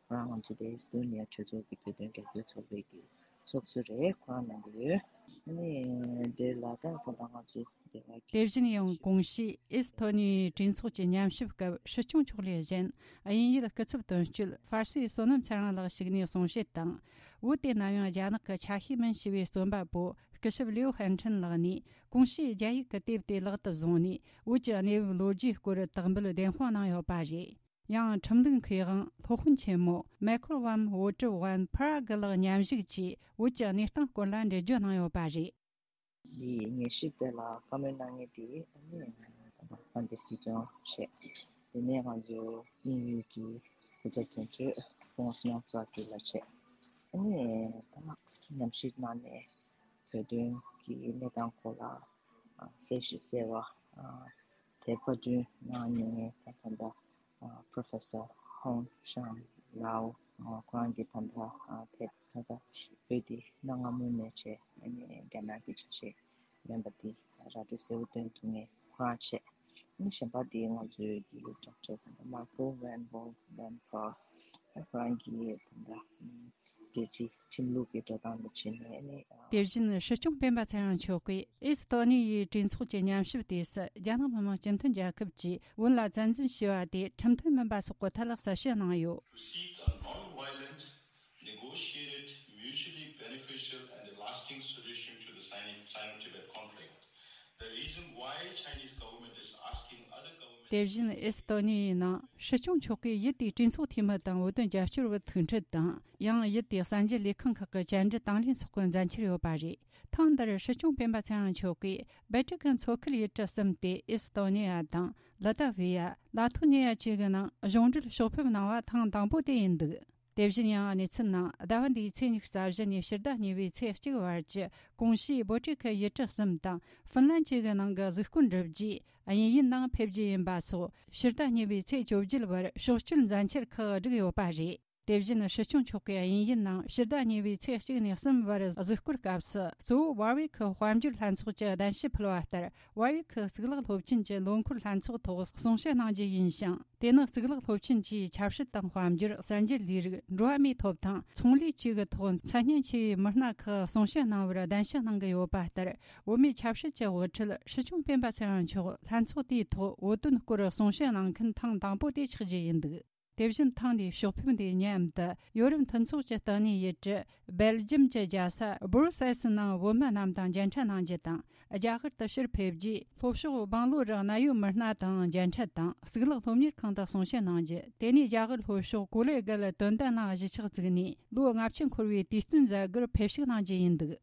ཁོ་རང་ང་ཚོ་དེ་ཨི་སི་ཐོ་ནི་ཡ་གྲོས་ཚོགས་ཀྱི་བོད་དོན་རྒྱབ་སྐྱོར་ཚོགས་པའི་གི་ཚོགས་གཙོ་རེད། ཁོ་རང་གནང་གི་ཡོད། ཨ་ནི་དེ་ལ་ད་ད་ལྟ་ང་ཚོ་དེ་བཞིན་ཡང་གོང་ཞུས་ཨེ་སི་ཐོ་ནི་ཡའི་གྲོས་ཚོགས་ཀྱི་ཉམས་ཞིབ་སྐབས་སྲིད་སྐྱོང་མཆོག་ལས་གཞན། དབྱིན་ཡུལ་སྐུ་ཚབ་དོན་གཅོད་ཧྥར་སི་བསོད་ནམས་ཚེ་རིང་ལགས་ཞུགས་ནས་གསུང་བཤད་དང་། བོད་དེ་ནམ་ཡང་རྒྱ་ནག་གི་ཆ་ཤས་མིན་ཞེས་པའི་རྩོམ་པ་པོ་སྐུ་ཞབས་ལིའུ་ཧན་ཁྲིན་ལགས་ནས་གོང་ཞུས་རྒྱ་ཡིག་གི་དེབ་དེ་ལག་ཏུ་བཟུང་ནས། བོད་ཀྱི་གནས་བབ་ལོ་རྒྱུས་སྐོར་དག་འབུལ་བདེན་དཔང་གནང་ཡོད་པ་རེད། ཡང་ཁྲིམས་ལུགས་མཁས་དབང་སློབ་དཔོན་ཆེན་མོ་མེ་ཁོར་ཝམ་ཝོ་ཀྲི་ཝན་ཕ་ར་གི་ལགས་མཉམ་ཞུགས་ཀྱིས་བོད་ཀྱི་གནས་སྟངས་སྐོར་ལ་འགྲེལ་བརྗོད་གནང་ཡོད་པ་རེད། འདིའི་ཉན་ཞིབ་དེ་ལ་བཀའ་མོལ་གནང་མཁན་དེ་ཨ་ནི་དཔལ་ལྡན་སྲིད་སྐྱོང་བྱས། དེ་ནས་ང་ཚོ་དབྱིན་ཡུལ་གྱི་སྐུ་ཚབ་དོན་གཅོད་ཧྥོང་སི་ནང་ཧྥ་སི་ལགས་བྱས། ཨ་ནི་ད་ཉམས་ཞིབ་གནང་ནས་བོད་དོན་གྱི་གནས་སྟངས་སྐོར་ལ་ཨ་གསལ་བཤད་གསལ་བ་ཨ་དེ་པར་སྐྲུན་གནང་མྱོང་མཁན་ད་ད་ལྟ་ཨ་Professor Hong Shan Lao ཨ་ཁོ་རང་གིས་ད་ལྟ་ཨ་དེབ་ད་ལྟ་བོད་འདི་གནའ་སྔ་མོ་ནས་བྱས་ཨ་ནི་རྒྱ་ནག་གི་ཆ་ཤས་མིན་པ་འདི་ར་སྤྲོད་གསལ་བོ་སྟོན་ཐུབ་མཁན་ཁོ་རང་བྱས། ཨ་ནི་གཞན་པ་འདི་ང་ཚོའི་གི་Doctor ད་ལྟ་Michael Van Wall Van Pro ཨ་ཁོ་རང་གིས་ད་ལྟ་ཨ་རྒྱལ་སྤྱིའི་ཁྲིམས་ལུགས་ཀྱི་འགྲོ་སྟངས་དང་བྱས་ནས་ཨ་ནི་ཨ། དེ་བཞིན་སྲིད་སྐྱོང་སྤེན་པ་ཚེ་རིང་མཆོག་གིས་ཨེ་སི་ཐོ་ནི་ཡའི་གྲོས་ཚོགས་ཀྱི་ཉམས་ཞིབ་དུས་སུ་རྒྱ་ནག་མི་དམངས་སྤྱི་མཐུན་རྒྱལ་ཁབ་ཀྱིས་བོད་ལ་བཙན་འཛུལ་བྱས་པ་དེ་ཁྲིམས་མཐུན་མིན་པ་སོགས་ཀྱི་ཐད་ལ་གསལ་བཤད་གནང་ཡོད། To seek a non-violent, negotiated, mutually beneficial and a lasting solution to the Sino- Sino-Tibet conflict. The reason why Chinese government is asking other governments དེ་བཞིན་ཨེ་སི་ཐོ་ནི་ཡའི་ནང་སྲིད་སྐྱོང་མཆོག་གིས་ཡུལ་དེའི་གྲོས་ཚོགས་འཐུས་མི་དང་བོད་དོན་རྒྱབ་སྐྱོར་བ་ཐུག་འཕྲད་དང་། ཡང་ཡུལ་དེའི་གསར་འགྱུར་ལས་ཁང་ཁག་གི་བཅར་འདྲི་དང་ལེན་སོགས་ཀྱི་མཛད་འཆར་ཡོད་པ་རེད། ཐེངས་འདིར་སྲིད་སྐྱོང་སྤེན་པ་ཚེ་རིང་མཆོག་གིས་སྦལ་ཏི་ཀན་མཚོ་ཁུལ་ཡུལ་གྲུ་གསུམ་སྟེ་ཨེ་སི་ཐོ་ནི་ཡ་དང་། ལི་ཏ་ཝི་ཡ། ལ་ཐོ་ནི་ཡ་བཅས་ཀྱི་ནང་གཞུང་འབྲེལ་ཕྱོགས་ཕེབས་གནང་བ་ཐེངས་དང་པོ་དེ་ཡིན་འདུག་དེ་བཞིན་ཡང་གནས་ཚུལ་ནང་ཟླ་བ་འདིའི་ཚེས་ཉི་ཤུ་རྩ་བཞི་ནས་ཕྱི་ཟླ་གཉིས་པའི་ཚེས་གཅིག་བར་གྱི་གོང་ཞུས་སྦོ་ཊི་ཁ་ཡུལ་གྲུ་གསུམ་དང་ཧྥིན་ལན་བཅས་ཀྱི་ནང་གི་གཟིགས་སྐོར་འགྲུབ་རྗེས་དབྱིན་ཡུལ་ནང་ཕེབས་རྒྱུ་ཡིན་པ་སོགས་ཕྱི་ཟླ་གཉིས་པའི་ཚེས་བཅོ་བརྒྱད་བར་ཕྱོགས་བསྐྱོད་མཛད་འཆར་ཁག་བསྒྲིགས་ཡོད་པ་རེད། དེ་བཞིན་སྲིད་སྐྱོང་མཆོག་གིས་དབྱིན་ཡུལ་ནང་ཕྱི་ཟླ་གཉིས་པའི་ཚེས་གཅིག་ནས་གསུམ་བར་གཟིགས་སྐོར་སྐབས་སུ་གཙོ་བོ་ཝར་ཝི་ཁི་དཔལ་འབྱོར་ལྷན་ཚོགས་ཀྱི་གདན་ཞུ་ཕུལ་བ་ལྟར། ཝར་ཝི་ཁི་གཙུག་ལག་སློབ་ཆེན་གྱི་ལོ་འཁོར་ལྷན་ཚོགས་ཐོག་གསུང་བཤད་གནང་རྒྱུ་ཡིན་ཞིང་། དེ་ནི་གཙུག་ལག་སློབ་ཆེན་གྱིས་ཆབ་སྲིད་དང་དཔལ་འབྱོར། གསར་འགྱུར་ལས་རིགས། འགྲོ་བ་མིའི་ཐོབ་ཐང་། ཚོང་ལས་བཅས་ཀྱི་ཐོག་མཚན་སྙན་ཆེ་བའི་མི་སྣ་ཁག་གསུང་བཤད་གནང་བར་གདན་ཞུ་གནང་གི་ཡོད་པ་ལྟར། བོད་མིའི་ཆབ་སྲིད་ཀྱི་དབུ་ཁྲིད་སྲིད་སྐྱོང་སྤེན་པ་ཚེ་རིང་མཆོག་ལྷན་ཚོགས་དེའི་ཐོག་བོད་དོན་སྐོར་གསུང་བཤད་གནང་མཁན་ཐེངས་དང་པོ་དེ་ཆགས་རྒྱུ་ཡིན་འདུག་དེ་བཞིན་ཐེངས་འདིའི་ཕྱོགས་ཕེབས་འདིའི་མཉམ་དུ་ཡོ་རོབ་མཐུན་ཚོགས་ཀྱི་ལྟེ་གནས་ཡུལ་གྲུ་སྦེལ་ཇམ་གྱི་རྒྱལ་ས་སྦུ་རུ་སེལ་སི་ནང་བོད་མི་རྣམས་དང་མཇལ་འཕྲད་གནང་རྒྱུ་དང་། རྒྱ་གར་དུ་ཕྱིར་ཕེབས་རྗེས་ལྷོ་ཕྱོགས་སྦང་ལོ་རི་གནའ་ཡོད་མི་སྣ་དང་མཇལ་འཕྲད་དང་། གཙུག་ལག་སློབ་གཉེར་ཁང་དུ་གསུང་བཤད་གནང་རྒྱུ། དེ་ནས་རྒྱ་གར་ལྷོ་ཕྱོགས་ཀོ་ལེ་གལ་དོན་ལྡན་གླིང་གཞིས་ཆགས་བཙུགས་ནས་ལོ་ལྔ་བཅུ་འཁོར་བའི་དུས་སྟོན་མཛད་སྒོར་ཕེབས་བཞུགས་གནང་རྒྱུ་ཡིན་འདུག་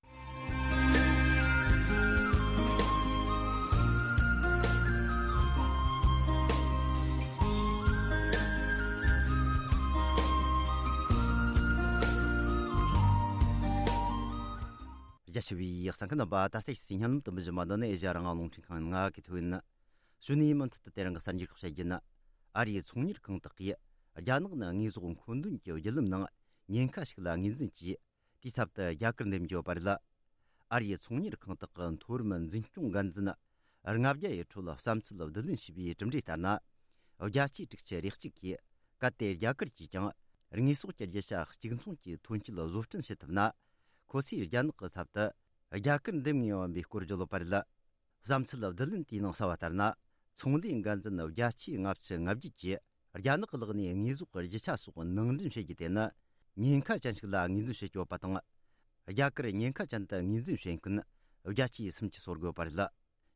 རྒྱ་ཆེ་བའི་གསན་མཁན་རྣམ་པ། ད་ལྟ་ཞིག་སིང་ཧ་ལམ་དུ་མི་བཞི་མ་འདི་ནི་ཨེ་ཤ་ཡ་རང་དབང་རླུང་འཕྲིན་ཁང་ང་གི་ཐོན། གཞོན་ནུའི་མུ་མཐུད་དུ་དེ་རིང་གི་གསར་འགྱུར་ཁག་བཤད་རྒྱུ་ནི། ཨ་རིའི་ཚོང་གཉེར་ཁང་དག་གིས་རྒྱ་ནག་ནི་དངོས་ཟོག་མཁོ་འདོན་གྱི་བརྒྱུད་ལམ་ནང་ཉེན་ཁ་ཞིག་ལ་ངོས་འཛིན་གྱིས། དེའི་ཚབ་ཏུ་རྒྱ་གར་འདེམས་རྒྱུ་བར་ལ། ཨ་རིའི་ཚོང་གཉེར་ཁང་དག་གི་མཐོ་རིམ་འཛིན་སྐྱོང་འགན་འཛིན་ ལྔ་བརྒྱ་ཡི་ཁྲོད་བསམ་ཚུལ་བསྡུ་ལེན་བྱས་པའི་གྲུབ་འབྲས་ལྟར་ན། བརྒྱ་ཆའི་དྲུག་ཅུ་རེ་གཅིག་གིས་གལ་ཏེ་རྒྱ་གར་གྱིས་ཀྱང་དངོས་ཟོག་གི་རྒྱུ་ཆ་གཅིག་མཚུངས་ཀྱི་ཐོན་སྐྱེད་བཟོ་སྐྲུན་བྱེད་ཐུབ་ན། ཁོ་ཚོས་རྒྱ་ནག་གི་ཚབ་ཏུ་རྒྱ་གར་འདེམས་ངེས་ཡིན་པའི་སྐོར་བརྗོད་ཡོད་པ་རེད། བསམ་ཚུལ་བསྡུ་ལེན་དེའི་ནང་གསལ་བ་ལྟར་ན། ཚོང་ལས་འགན་འཛིན་བརྒྱ་ཆའི་ལྔ་བཅུ་ང་བརྒྱད་ཀྱིས་རྒྱ་ནག་ལག་ནས་དངོས་ཟོག་གི་རྒྱུ་ཆ་སོགས་ནང་འདྲེན་བྱེད་རྒྱུ་དེ་ནི་ཉེན་ཁ་ཅན་ཞིག་ལ་ངོས་འཛིན་བྱེད་ཀྱི་ཡོད་པ་དང་། རྒྱ་གར་ཉེན་ཁ་ཅན་དུ་ངོས་འཛིན་བྱེད་མཁན་བརྒྱ་ཆའི་སུམ་ཅུ་སོ་དགུ་ཡོད་པ་རེད།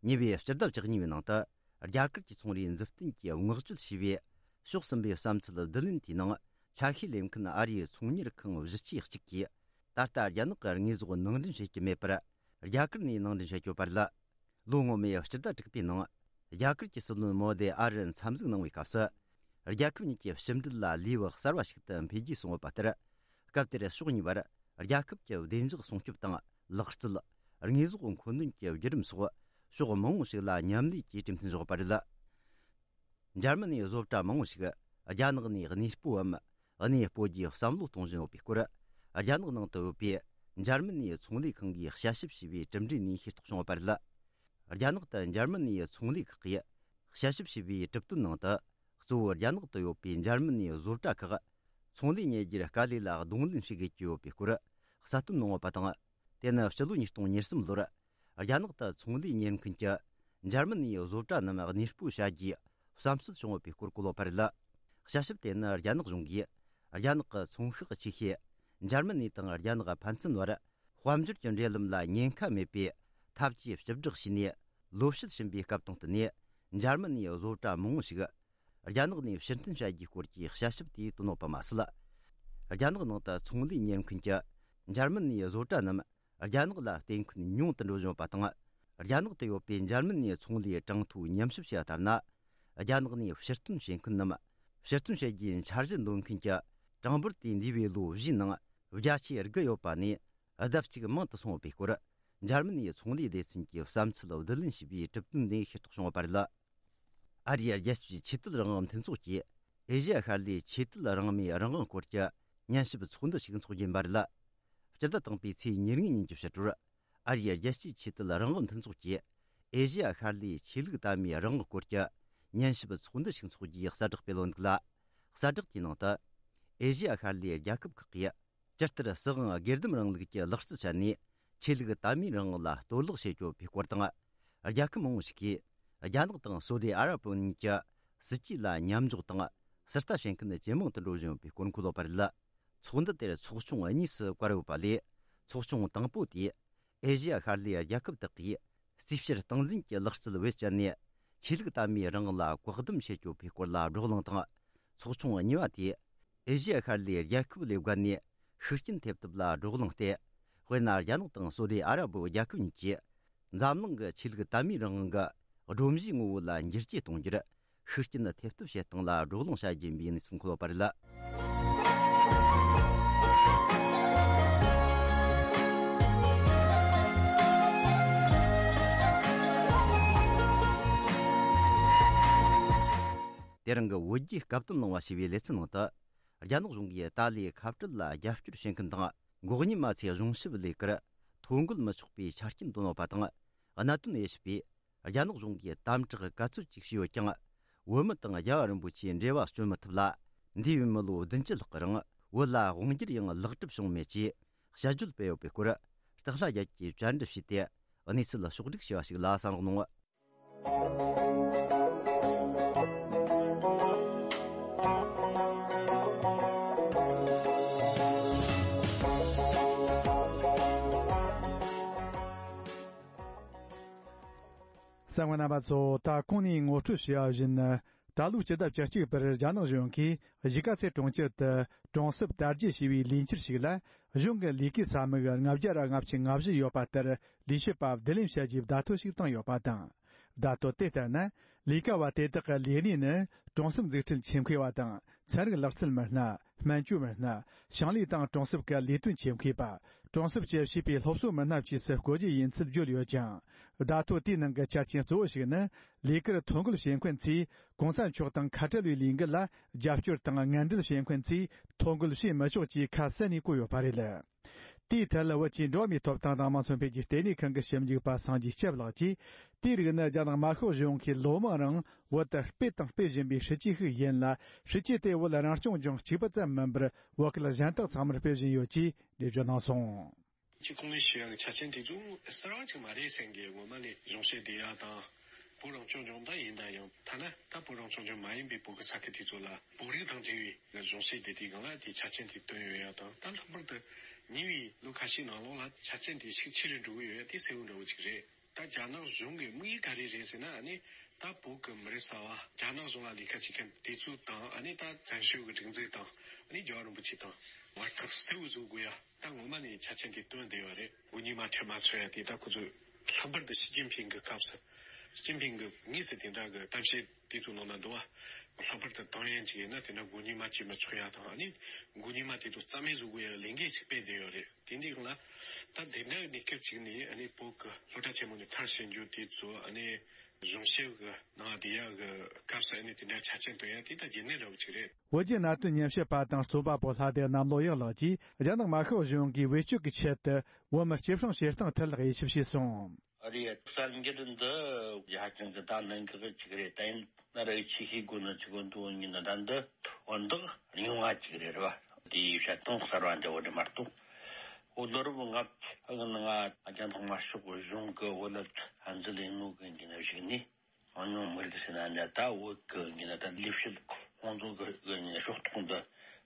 ཉེ་བའི་སྤྱི་ཟླ་བཅུ་གཉིས་པའི་ནང་དུ། རྒྱ་གར་གྱི་ཚོང་རའི་མཛུབ་སྟོན་གྱིས་བསྔགས་བརྗོད་བྱས་པའི་ཕྱོགས་གསུམ་པའི་བསམ་ཚུལ་བསྡུ་ལེན་དེའི་ནང་། ཆ་ཤས་ལེན་མཁན་ཨ་རིའི་ཚོང་གཉེར་ཁང་བཞི་ཆའི་གཅིག་གིས། ད་ལྟ་རྒྱ་ནག་གི་དངོས་ཟོག་ནང་འདྲེན་བྱེད་ཀྱི་མེད་པར། རྒྱ་གར་ནས་ནང་འདྲེན་བྱེད་ཀྱི་ཡོད་པ་རེད། ལོ་སྔོན་མའི་སྤྱི་ཟླ་དྲུག་པའི་ནང་། རྒྱ་གར་གྱི་སྲིད་བློན་མོ་དེ་ཨ་རིར་འཚམས་གཟིགས་གནང་བའི་སྐབས་སུ། རྒྱལ་ཁབ་གཉིས་ཀྱི་ཕྱི་འབྲེལ་ལ་ལེའུ་གསར་བ་ཞིག་ཏུ་འཕེལ་རྒྱས་སོང་ཡོད་པ་ལྟར། སྐབས་དེར་ཕྱོགས་གཉིས་བར་རྒྱལ་ཁབ་ཀྱི་བདེ་འཇགས་སྲུང་སྐྱོབ་དང་ལག་རྩལ། དངོས་ཟོག་མཁོ་འདོན་གྱི་བརྒྱུད་རིམ་སོགས་ཕྱོགས་མང་བོ་ཞིག་ལ་མཉམ་ལས་ཀྱིས་གྲོས་མཐུན་བཞག་པ་རེད། འཇར་མ་ནིའི་བཟོ་གྲྭ་མང་བོ་ཞིག་རྒྱ་ནག་ནས་གནས་སྤོའམ། གནས་སྤོ་རྒྱུའི་བསམ་བློ་གཏོང་བཞིན་ཡོད་པའི་སྐོར། རྒྱ་ནག་ནང་དུ་ཡོད་པའི་འཇར་མ་ནིའི་ཚོང་ལས་ཁང་གིས་དཔྱད་ཞིབ་བྱས་པའི་གྲུབ་འབྲས་ནས་ཤེས་རྟོགས་བྱུང་ཡོད་པ་རེད། རྒྱ་ནག་ཏུ་འཇར་མ་ནིའི་ཚོང་ལས་ཁག་གིས་དཔྱད་ཞིབ་བྱས་པའི་གྲུབ་དོན་ནང་དུ། གཙོ་བོ་རྒྱ་ནག་ཏུ་ཡོད་པའི་འཇར་མ་ནིའི་བཟོ་གྲྭ་ཁག་ཚོང་ལས་གཉེར་རྒྱུར་དཀའ་ལས་ལ་གདོང་ལེན་བྱེད་དགོས་ཀྱི་ཡོད་པའི་སྐོར་གསལ་སྟོན་གནང་ཡོད་པ་དང་། དེ་ནི་ཕྱི་ལོ་ཉིས་སྟོང་ཉེར་གསུམ་ལོར་རྒྱ་ནག་ཏུ་ཚོང་ལས་གཉེར་མཁན་གྱི་འཇར་མ་ནིའི་བཟོ་གྲྭ་རྣམས་གནས་སྤོ་བྱ་རྒྱུའི་བསམ་ཚུལ་བྱུང་ཡོད་པའི་སྐོར་བཀོད་ཡོད་པ་རེད། དཔྱད་ཞིབ་དེ་ནི་རྒྱ་ནག་གཞུང་གིས་རྒྱ་ནག་གི་ཚོང་ཤག་ཆེ་ཤོས་འཇར་མ་ནི་དང་རྒྱ་ནག་ཕན་ཚུན་བར་དཔལ་འབྱོར་གྱི་འབྲེལ་ལམ་ལ་ཉེན་ཁ་མེད་པའི་ཐབས་ཇུས་བཅུ་བསྒྲགས་བྱས་ནས་ལོ་ཕྱེད་ཕྱིན་པའི་སྐབས་དང་བསྟུན་ནས། འཇར་མ་ནིའི་བཟོ་གྲྭ་མང་བོ་ཞིག་རྒྱ་ནག་ནས་ཕྱིར་འཐེན་བྱ་རྒྱུའི་སྐོར་གྱི་དཔྱད་ཞིབ་དེ་བཏོན་ཡོད་པ་མ་ཟད། རྒྱ་ནག་ནང་དུ་ཚོང་ལས་གཉེར་མཁན་གྱི་འཇར་མ་ནིའི་བཟོ་གྲྭ་རྣམས་རྒྱ་ནག་ལ་བརྟེན་མཁན་ཉུང་དུ་འགྲོ་བཞིན་ཡོད་པ་དང་། རྒྱ་ནག་ཏུ་ཡོད་པའི་འཇར་མ་ནིའི་ཚོང་ལས་གྲངས་ཐོའི་ཉམས་ཞིབ་བྱས་པ་ལྟར་ན། རྒྱ་ནག་ནས་ཕྱིར་འཐེན་བྱེད་མཁན་རྣམས་ཕྱིར་འཐེན་བྱེད་རྒྱུའི་འཆར་གཞི་འདོན་མཁན་གྱི་གྲངས་འབོར་དེ་འདས་པའི་ལོ་བཞིའི་ནང་བརྒྱ་ཆའི་དགུ་ཡོད་པ་ནས་ལྡབ་གཅིག་མང་དུ་སོང་ཡོད་པའི་སྐོར། འཇར་མ་ནིའི་ཚོང་ལས་སྡེ་ཚན་གྱིས་བསམ་ཚུལ་བསྡུ་ལེན་བྱས་པའི་གྲུབ་དོན་ནས་ཤེས་རྟོགས་བྱུང་ཡོད་པ་རེད། ཨ་རིའི་རྒྱལ་སྤྱིའི་ཆོས་དད་རང་དབང་མཐུན་ཚོགས་ཀྱིས་ཨེ་ཤི་ཡ་ཤར་ལྷོའི་ཆོས་དད་རང་མོས་རང་དབང་སྐོར་གྱི་ཉན་ཞིབ་ཚོགས་འདུ་ཞིག་འཚོགས་ཀྱིན་པ་རེད། སྤྱི་ཟླ་དང་པོའི་ཚེས་ཉེར་ལྔ་ཉིན་གྱི་ཕྱི་དྲོར། ཨ་རིའི་རྒྱལ་སྤྱིའི་ཆོས་དད་རང་དབང་མཐུན་ཚོགས་ཀྱིས་ཨེ་ཤི་ཡ་ཤར་ལྷོའི་ཆོས་ལུགས་དད་མོས་རང་དབང་སྐོར་གྱི་ཉན་ཞིབ་ཚོགས་འདུ་ཞིག་འཚོགས་རྒྱུའི་གསལ་བསྒྲགས་སྤེལ་ཡོད་འདུག་ལ། གསལ་བསྒྲགས་དེའི་ནང་དུ། ཨེ་ཤི་ཡ་ཤར་ལྷོའི་རྒྱལ་ཁབ་ཁག་གིས། ཇི་ལྟར་སྲིད་དབང་སྒེར་སྡོམ་རིང་ལུགས་ཀྱི་ལག་རྩལ་སྤྱད་ནས་ཆོས་ལུགས་དད་མོས་རང་དབང་ལ་གཏོར་བརླག་བྱེད་ཀྱི་ཡོད་པའི་སྐོར་དང་། རྒྱལ་ཁབ་མང་བོ་ཞིག་གིས་རྒྱ་ནག་དང་སོ་ཏི་ཨ་ར་པོ་གཉིས་ཀྱི་སྲིད་ཇུས་ལ་མཉམ་འཇོག་དང་ཟུར་ལྟ་བྱེད་མཁན་ཇེ་མང་དུ་འགྲོ་བཞིན་ཡོད་པའི་སྐོར་འཁོད་ཡོད་པ་རེད། ཚོགས་འདུ་དེར་ཚོགས་ཆུང་གཉིས་སུ་བཀར་ཡོད་པ་ལས། ཚོགས་ཆུང་དང་པོ་དེས་ཨེ་ཤི་ཡ་ཤར་ལྷོའི་རྒྱལ་ཁབ་དག་གིས་རྩིས་བཤེར་སྟངས་འཛིན་གྱི་ལག་རྩལ་བེད་སྤྱད་ནས་ཆོས་ལུགས་དད་མོས་རང་དབང་ལ་བཀག་སྡོམ་བྱེད་ཀྱི་ཡོད་པའི་སྐོར་ལ་བགྲོ་གླེང་དང་། ཚོགས་ཆུང་གཉིས་པ་དེས་ཨེ་ཤི་ཡ་ཤར་ལྷོའི་རྒྱལ་ཁབ་ལས་བརྒལ་ནས་ཤུགས་རྐྱེན་ཐེབས་ཐབས་ལ་བགྲོ་གླེང་སྟེ། དཔེར་ན། རྒྱ་ནག་དང་སོ་ཏི་ཨ་ར་པོ་རྒྱལ་ཁབ་གཉིས་ཀྱིས་འཛམ་གླིང་གི་ཆོས་ལུགས་དད་མོས་རང་དབང་གི་སྒྲོམ་གཞིའི་ངོ་བོ་ལ་འགྱུར་བཅོས་གཏོང་རྒྱུར་ཤུགས་རྐྱེན་ཐེབས་ཐབས་བྱེད་སྟངས་ལ་བགྲོ་གླེང་བྱ་རྒྱུ་ཡིན་པའི་གནས་ཚུལ་འཁོད་ཡོད་པ་རེད། དེ་རིང་གི་བོད་རྒྱའི་སྐབས་དོན་གླེང་བ་ཞེས་པའི་ལེ་ཚན་ནང་དུ། རྒྱ་ནག་གཞུང་གིས་ཏཱ་ལའི་ཁ་བྲལ་ལ་རྒྱབ་སྐྱོར་བྱེད་མཁན་དང་། འགོག་ཉེས་མ་ཚད་གཞུང་ཞབས་ལས་ཀར་ཐོ་འགོད་མི་ཆོག་པའི་ཆ་རྐྱེན་བཏོན་ཡོད་པ་དང་། གནད་དོན་དབྱེ་ཞིབ་པས། རྒྱ་ནག་གཞུང་གིས་དམ་དྲག་ག་ཚོད་ཅིག་བྱས་ཡོད་ཀྱང་། བོད་མི་དང་རྒྱལ་བ་རིན་པོ་ཆེའི་འབྲེལ་བ་གཅོད་མི་ཐུབ་ལ། འདས་པའི་མི་ལོ་བདུན་ཅུ་ལྷག་གི་རིང་བོད་ལ་དབང་སྒྱུར་ཡང་ལེགས་གྲུབ་བྱུང་མེད་ཅེས་དཔྱད་བརྗོད་སྤེལ་ཡོད་པའི་སྐོར། སྟག་ལྷ་རྒྱལ་གྱིས་བཅར་འདྲི་བྱས་ཏེ་གནས་ཚུལ་ཕྱོགས་བསྒྲིགས་བྱས་པ་ཞིག་ལ་གསན་རོགས་གནང་། གསན་མཁན་རྣམ་པ་ཚོ། ད་གོང་ནས་ངོ་སྤྲོད་བྱས་པ་བཞིན། ད་ལོའི་སྤྱི་ཟླ་བཅུ་གཅིག་པར་རྒྱ་ནག་གཞུང་གིས་གཞིས་ཀ་རྩེ་གྲོང་ཁྱེར་དུ་གྲོང་གསེབ་དར་རྒྱས་ཞེས་པའི་ལས་འཁྱུར་ཞིག་ལ། གཞུང་གི་ལས་ཀའི་ས་མིག་ལྔ་བརྒྱ་ར་ལྔ་བཅུ་ང་བཞི་ཡོད་པ་ལྟར། ལས་བྱེད་པ་བསྡུ་ལེན་བྱ་རྒྱུའི་བརྡ་ཐོ་ཞིག་བཏང་ཡོད་པ་དང་། བརྡ་ཐོ་དེ་ལྟར་ན། ལས་ཀ་བ་དེ་དག་གི་ལས་གནས་ནི། གྲོང་གསེབ་འཛུགས་སྐྲུན་ཆེད་མཁས་པ་དང་། ཚན་རིག་ལག་རྩལ་མི་སྣ། སྨན་བཅོས་མི་སྣ། ཞིང་ལས་དང་གྲོང་གསེབ་ཀྱི་ལས་དོན་ཆེད་མཁས་པ། གྲོང་གསེབ་ཀྱི་བྱིས་པའི་སློབ་གསོ་མི་སྣ་བཅས་སུ་བཀོད་རྒྱུ་ཡིན་ཚུལ་བརྗོད་ཡོད་ཅིང་། བརྡ་ཐོ་དེའི་ནང་གི་ཆ་རྐྱེན་གཙོ་བོ་ཞིག་ནི། ལས་ཀར་ཐོ་འགོད་བྱེད་མཁན་ཚོས་གོང་ས་མཆོག་དང་ཁ་བྲལ་བའི་ལས་འགུལ་ལ་རྒྱབ་སྐྱོར་དང་ངན་འབྲེལ་བྱེད་མཁན་ཚོས་ཐོ་འགོད་བྱེད་མི་ཆོག་ཅེས་ཁ་གསལ་ནས་བཀོད་ཡོད་པ་རེད། དེའི་ཐད་ལ་བོད་ཀྱི་འགྲོ་བ་མིའི་ཐོབ་ཐང་དང་དམངས་སོང་འཕེལ་རྒྱས་ལྟེ་གནས་ཁང་གི་ཞིབ་འཇུག་པ་སངས་རྒྱས་སྐྱབས་ལགས་ཀྱིས། དེའི་རིགས་ནི་རྒྱ་ནག་དམར་ཤོག་གཞུང་གིས་ལོ་མང་རིང་བོད་དུ་སྤེལ་དང་སྤེལ་བཞིན་པའི་སྲིད་ཇུས་ཤིག་ཡིན་ལ། སྲིད་ཇུས་དེ་བོད་རང་སྐྱོང་ལྗོངས་གཅིག་པུ་ཙམ་མིན་པར་བོད་སྐད་གཞན་དག་ཚང་མར་སྤེལ་བཞིན་ཡོད་ཅེས་འགྲེལ་བརྗོད་གནང་སོང་། སྤྱི་ཁོངས་ནས་ཞུ་ཡག་གི་ཆ་རྐྱེན་དེ་ཚོ་གསར་བ་ཅིག་མ་རེད་ཟེར་མཁན་ངོ་མ་ནས་གཞུང་བཤད་བསྡད་ཡག་དང་། བོད་རང་སྐྱོང་ལྗོངས་ད་ཡིན་ད་ཡང་ཐ་ན་ད་བོད་རང་སྐྱོང་ལྗོངས་མ་ཡིན་པའི་བོད་ཀྱི་ས་ཁུལ་དེ་ཚོ་ལ་བོད་རིགས་དང་འབྲེལ་བའི་གཞུང་བཤད་བསྡད་དུས་སྒང་ལ་དེ་ཆ་རྐྱེན་དེ་བཏོན་ཡོད་ཡག་དང་། ད་ལྷག་པར་དུ་ཉེ་བའི་ལོ་ཁ་ཤས་ནང་ལོགས་ལ་ཆ་རྐྱེན་དེ་ཤུགས་ཆེ་རུ་འགྲོ་གི་ཡོད་ཡག་དེ་གསལ་བོ་འདྲ་བོ་ཅིག་རེད། ད་རྒྱ་ནག་གཞུང་གི་དམིགས་ཡུལ་ག་རེ་རེད་ཟེར་ན། ཨ་ནི་ད་བོད་ཀྱི་མི་རབས་གསར་བ་རྒྱ་ནག་གཞུང་ལ་ལས་ཀ་བྱེད་མཁན་དེ་ཚོ་དང་། ཨ་ནི་ད་བཙན་བྱོལ་གྱི་སྒྲིག་འཛུགས་དང་། ཨ་ནི་རྒྱལ་བ་རིན་པོ་ཆེ་དང་བར་ཐག་གསལ་བོ་བཟོ་དགོས་ཡ། ད་ངོ་མ་ནས་ཆ་རྐྱེན་དེ་བཏོན་བསྡད་ཡོད་རེད། མགོ་གཉིས་མ་ཁྲལ་མ་ཚོད་ཡ་དེ་ད་ཁོ་ཚོས་ལྷག་པར་དུ་ཞི་ཅིན་ཕིང་གི་སྐབས་སུ། ཞི་ཅིན་ཕིང་གི་དངོས་སུ་དེ་འདྲ་གི་གཏམ་བཤད་དེ་ཚོ་ནང་ན་འདུག་བ། ལྷག་པར་དུ་ཏང་ཡོན་ཅིག་ཡིན་ན་དེ་འདྲ་མགོ་གཉིས་མ་བྱེད་མི་ཆོག་ཡ་དང་། ཨ་ནི་མགོ་གཉིས་མ་དེ་ཚོ་རྩ་མེད་བཟོ་དགོས་ཡ་ལས་འགན་ཅིག་སྤེལ་བསྡད་ཡོད་རེད། དེ་འདི་ལ་ད་དེ་འདྲ་གནས་སྐབས་ཅིག་ནས། ཨ་ནི་བོད་ཀྱི་སློབ་གྲྭ་ཆེན་མོ་ནས་མཐར་ཕྱིན་རྒྱུ་དེ་ཚོ། ཨ་ནི་གཞུང་བཤད་གི་ནང་བསྡད་ཡག་གི་སྐབས་སུ། ཨ་ནི་དེ་འདྲ་ཆ་རྐྱེན་བཏོན་ཡག་དེ་ད་རྒྱུན་ལྡན་འདྲ་བོ་ཅིག་རེད། བོད་བརྒྱུད་ནང་བསྟན་ཉམས་ཞིབ་པ་དང་རྩོམ་པ་པོ་ལྷ་སྡེ་གནམ་ལོ་ཡག་ལགས་ཀྱིས། རྒྱ་ནག་དམར་ཤོག་གཞུང་གིས་བེད་སྤྱོད་ཀྱི་ཆེད་དུ་བོད་མི་སྐྱེད་སྲིང་བྱེད་སྟངས་ཐད་ལ་དབྱེ་ཞིབ་བྱས་སོང་། རེད། གསར་འགྱུར་འདི་ཧ་ཅང་གི་ད་གནད་འགག་ཅིག་རེད། ད་ཡིན་ན་ར་ཆེས་ཤེས་དགོས་ནི་ཅིག་འདུག་ཡིན་ན། ད་འདི་དོན་དག་རྙིང་བ་ཅིག་རེད་བ། དེའི་བཤད་སྟངས་གསར་བ་འདྲ་བོ་རེད་མ་གཏོགས། འོ་ལོ་རབས་ལྔ་བཅུ་ང་རྒྱ་ནག་དམར་ཤོག་གཞུང་གི་བོད་ལ་འཛིན་ལས་ནོ་གི་ཡིན་ན་ཞིག་ནི། གང་ཉུང་མི་རིགས་ཟེར་ན་འདྲ། ད་བོད་ཀྱི་ཡིན་ན་ད་ལས་བྱེད་ཁོང་ཚོ་གི་ཡིན་ན་ཕྱོགས་གཏོགས་འདི་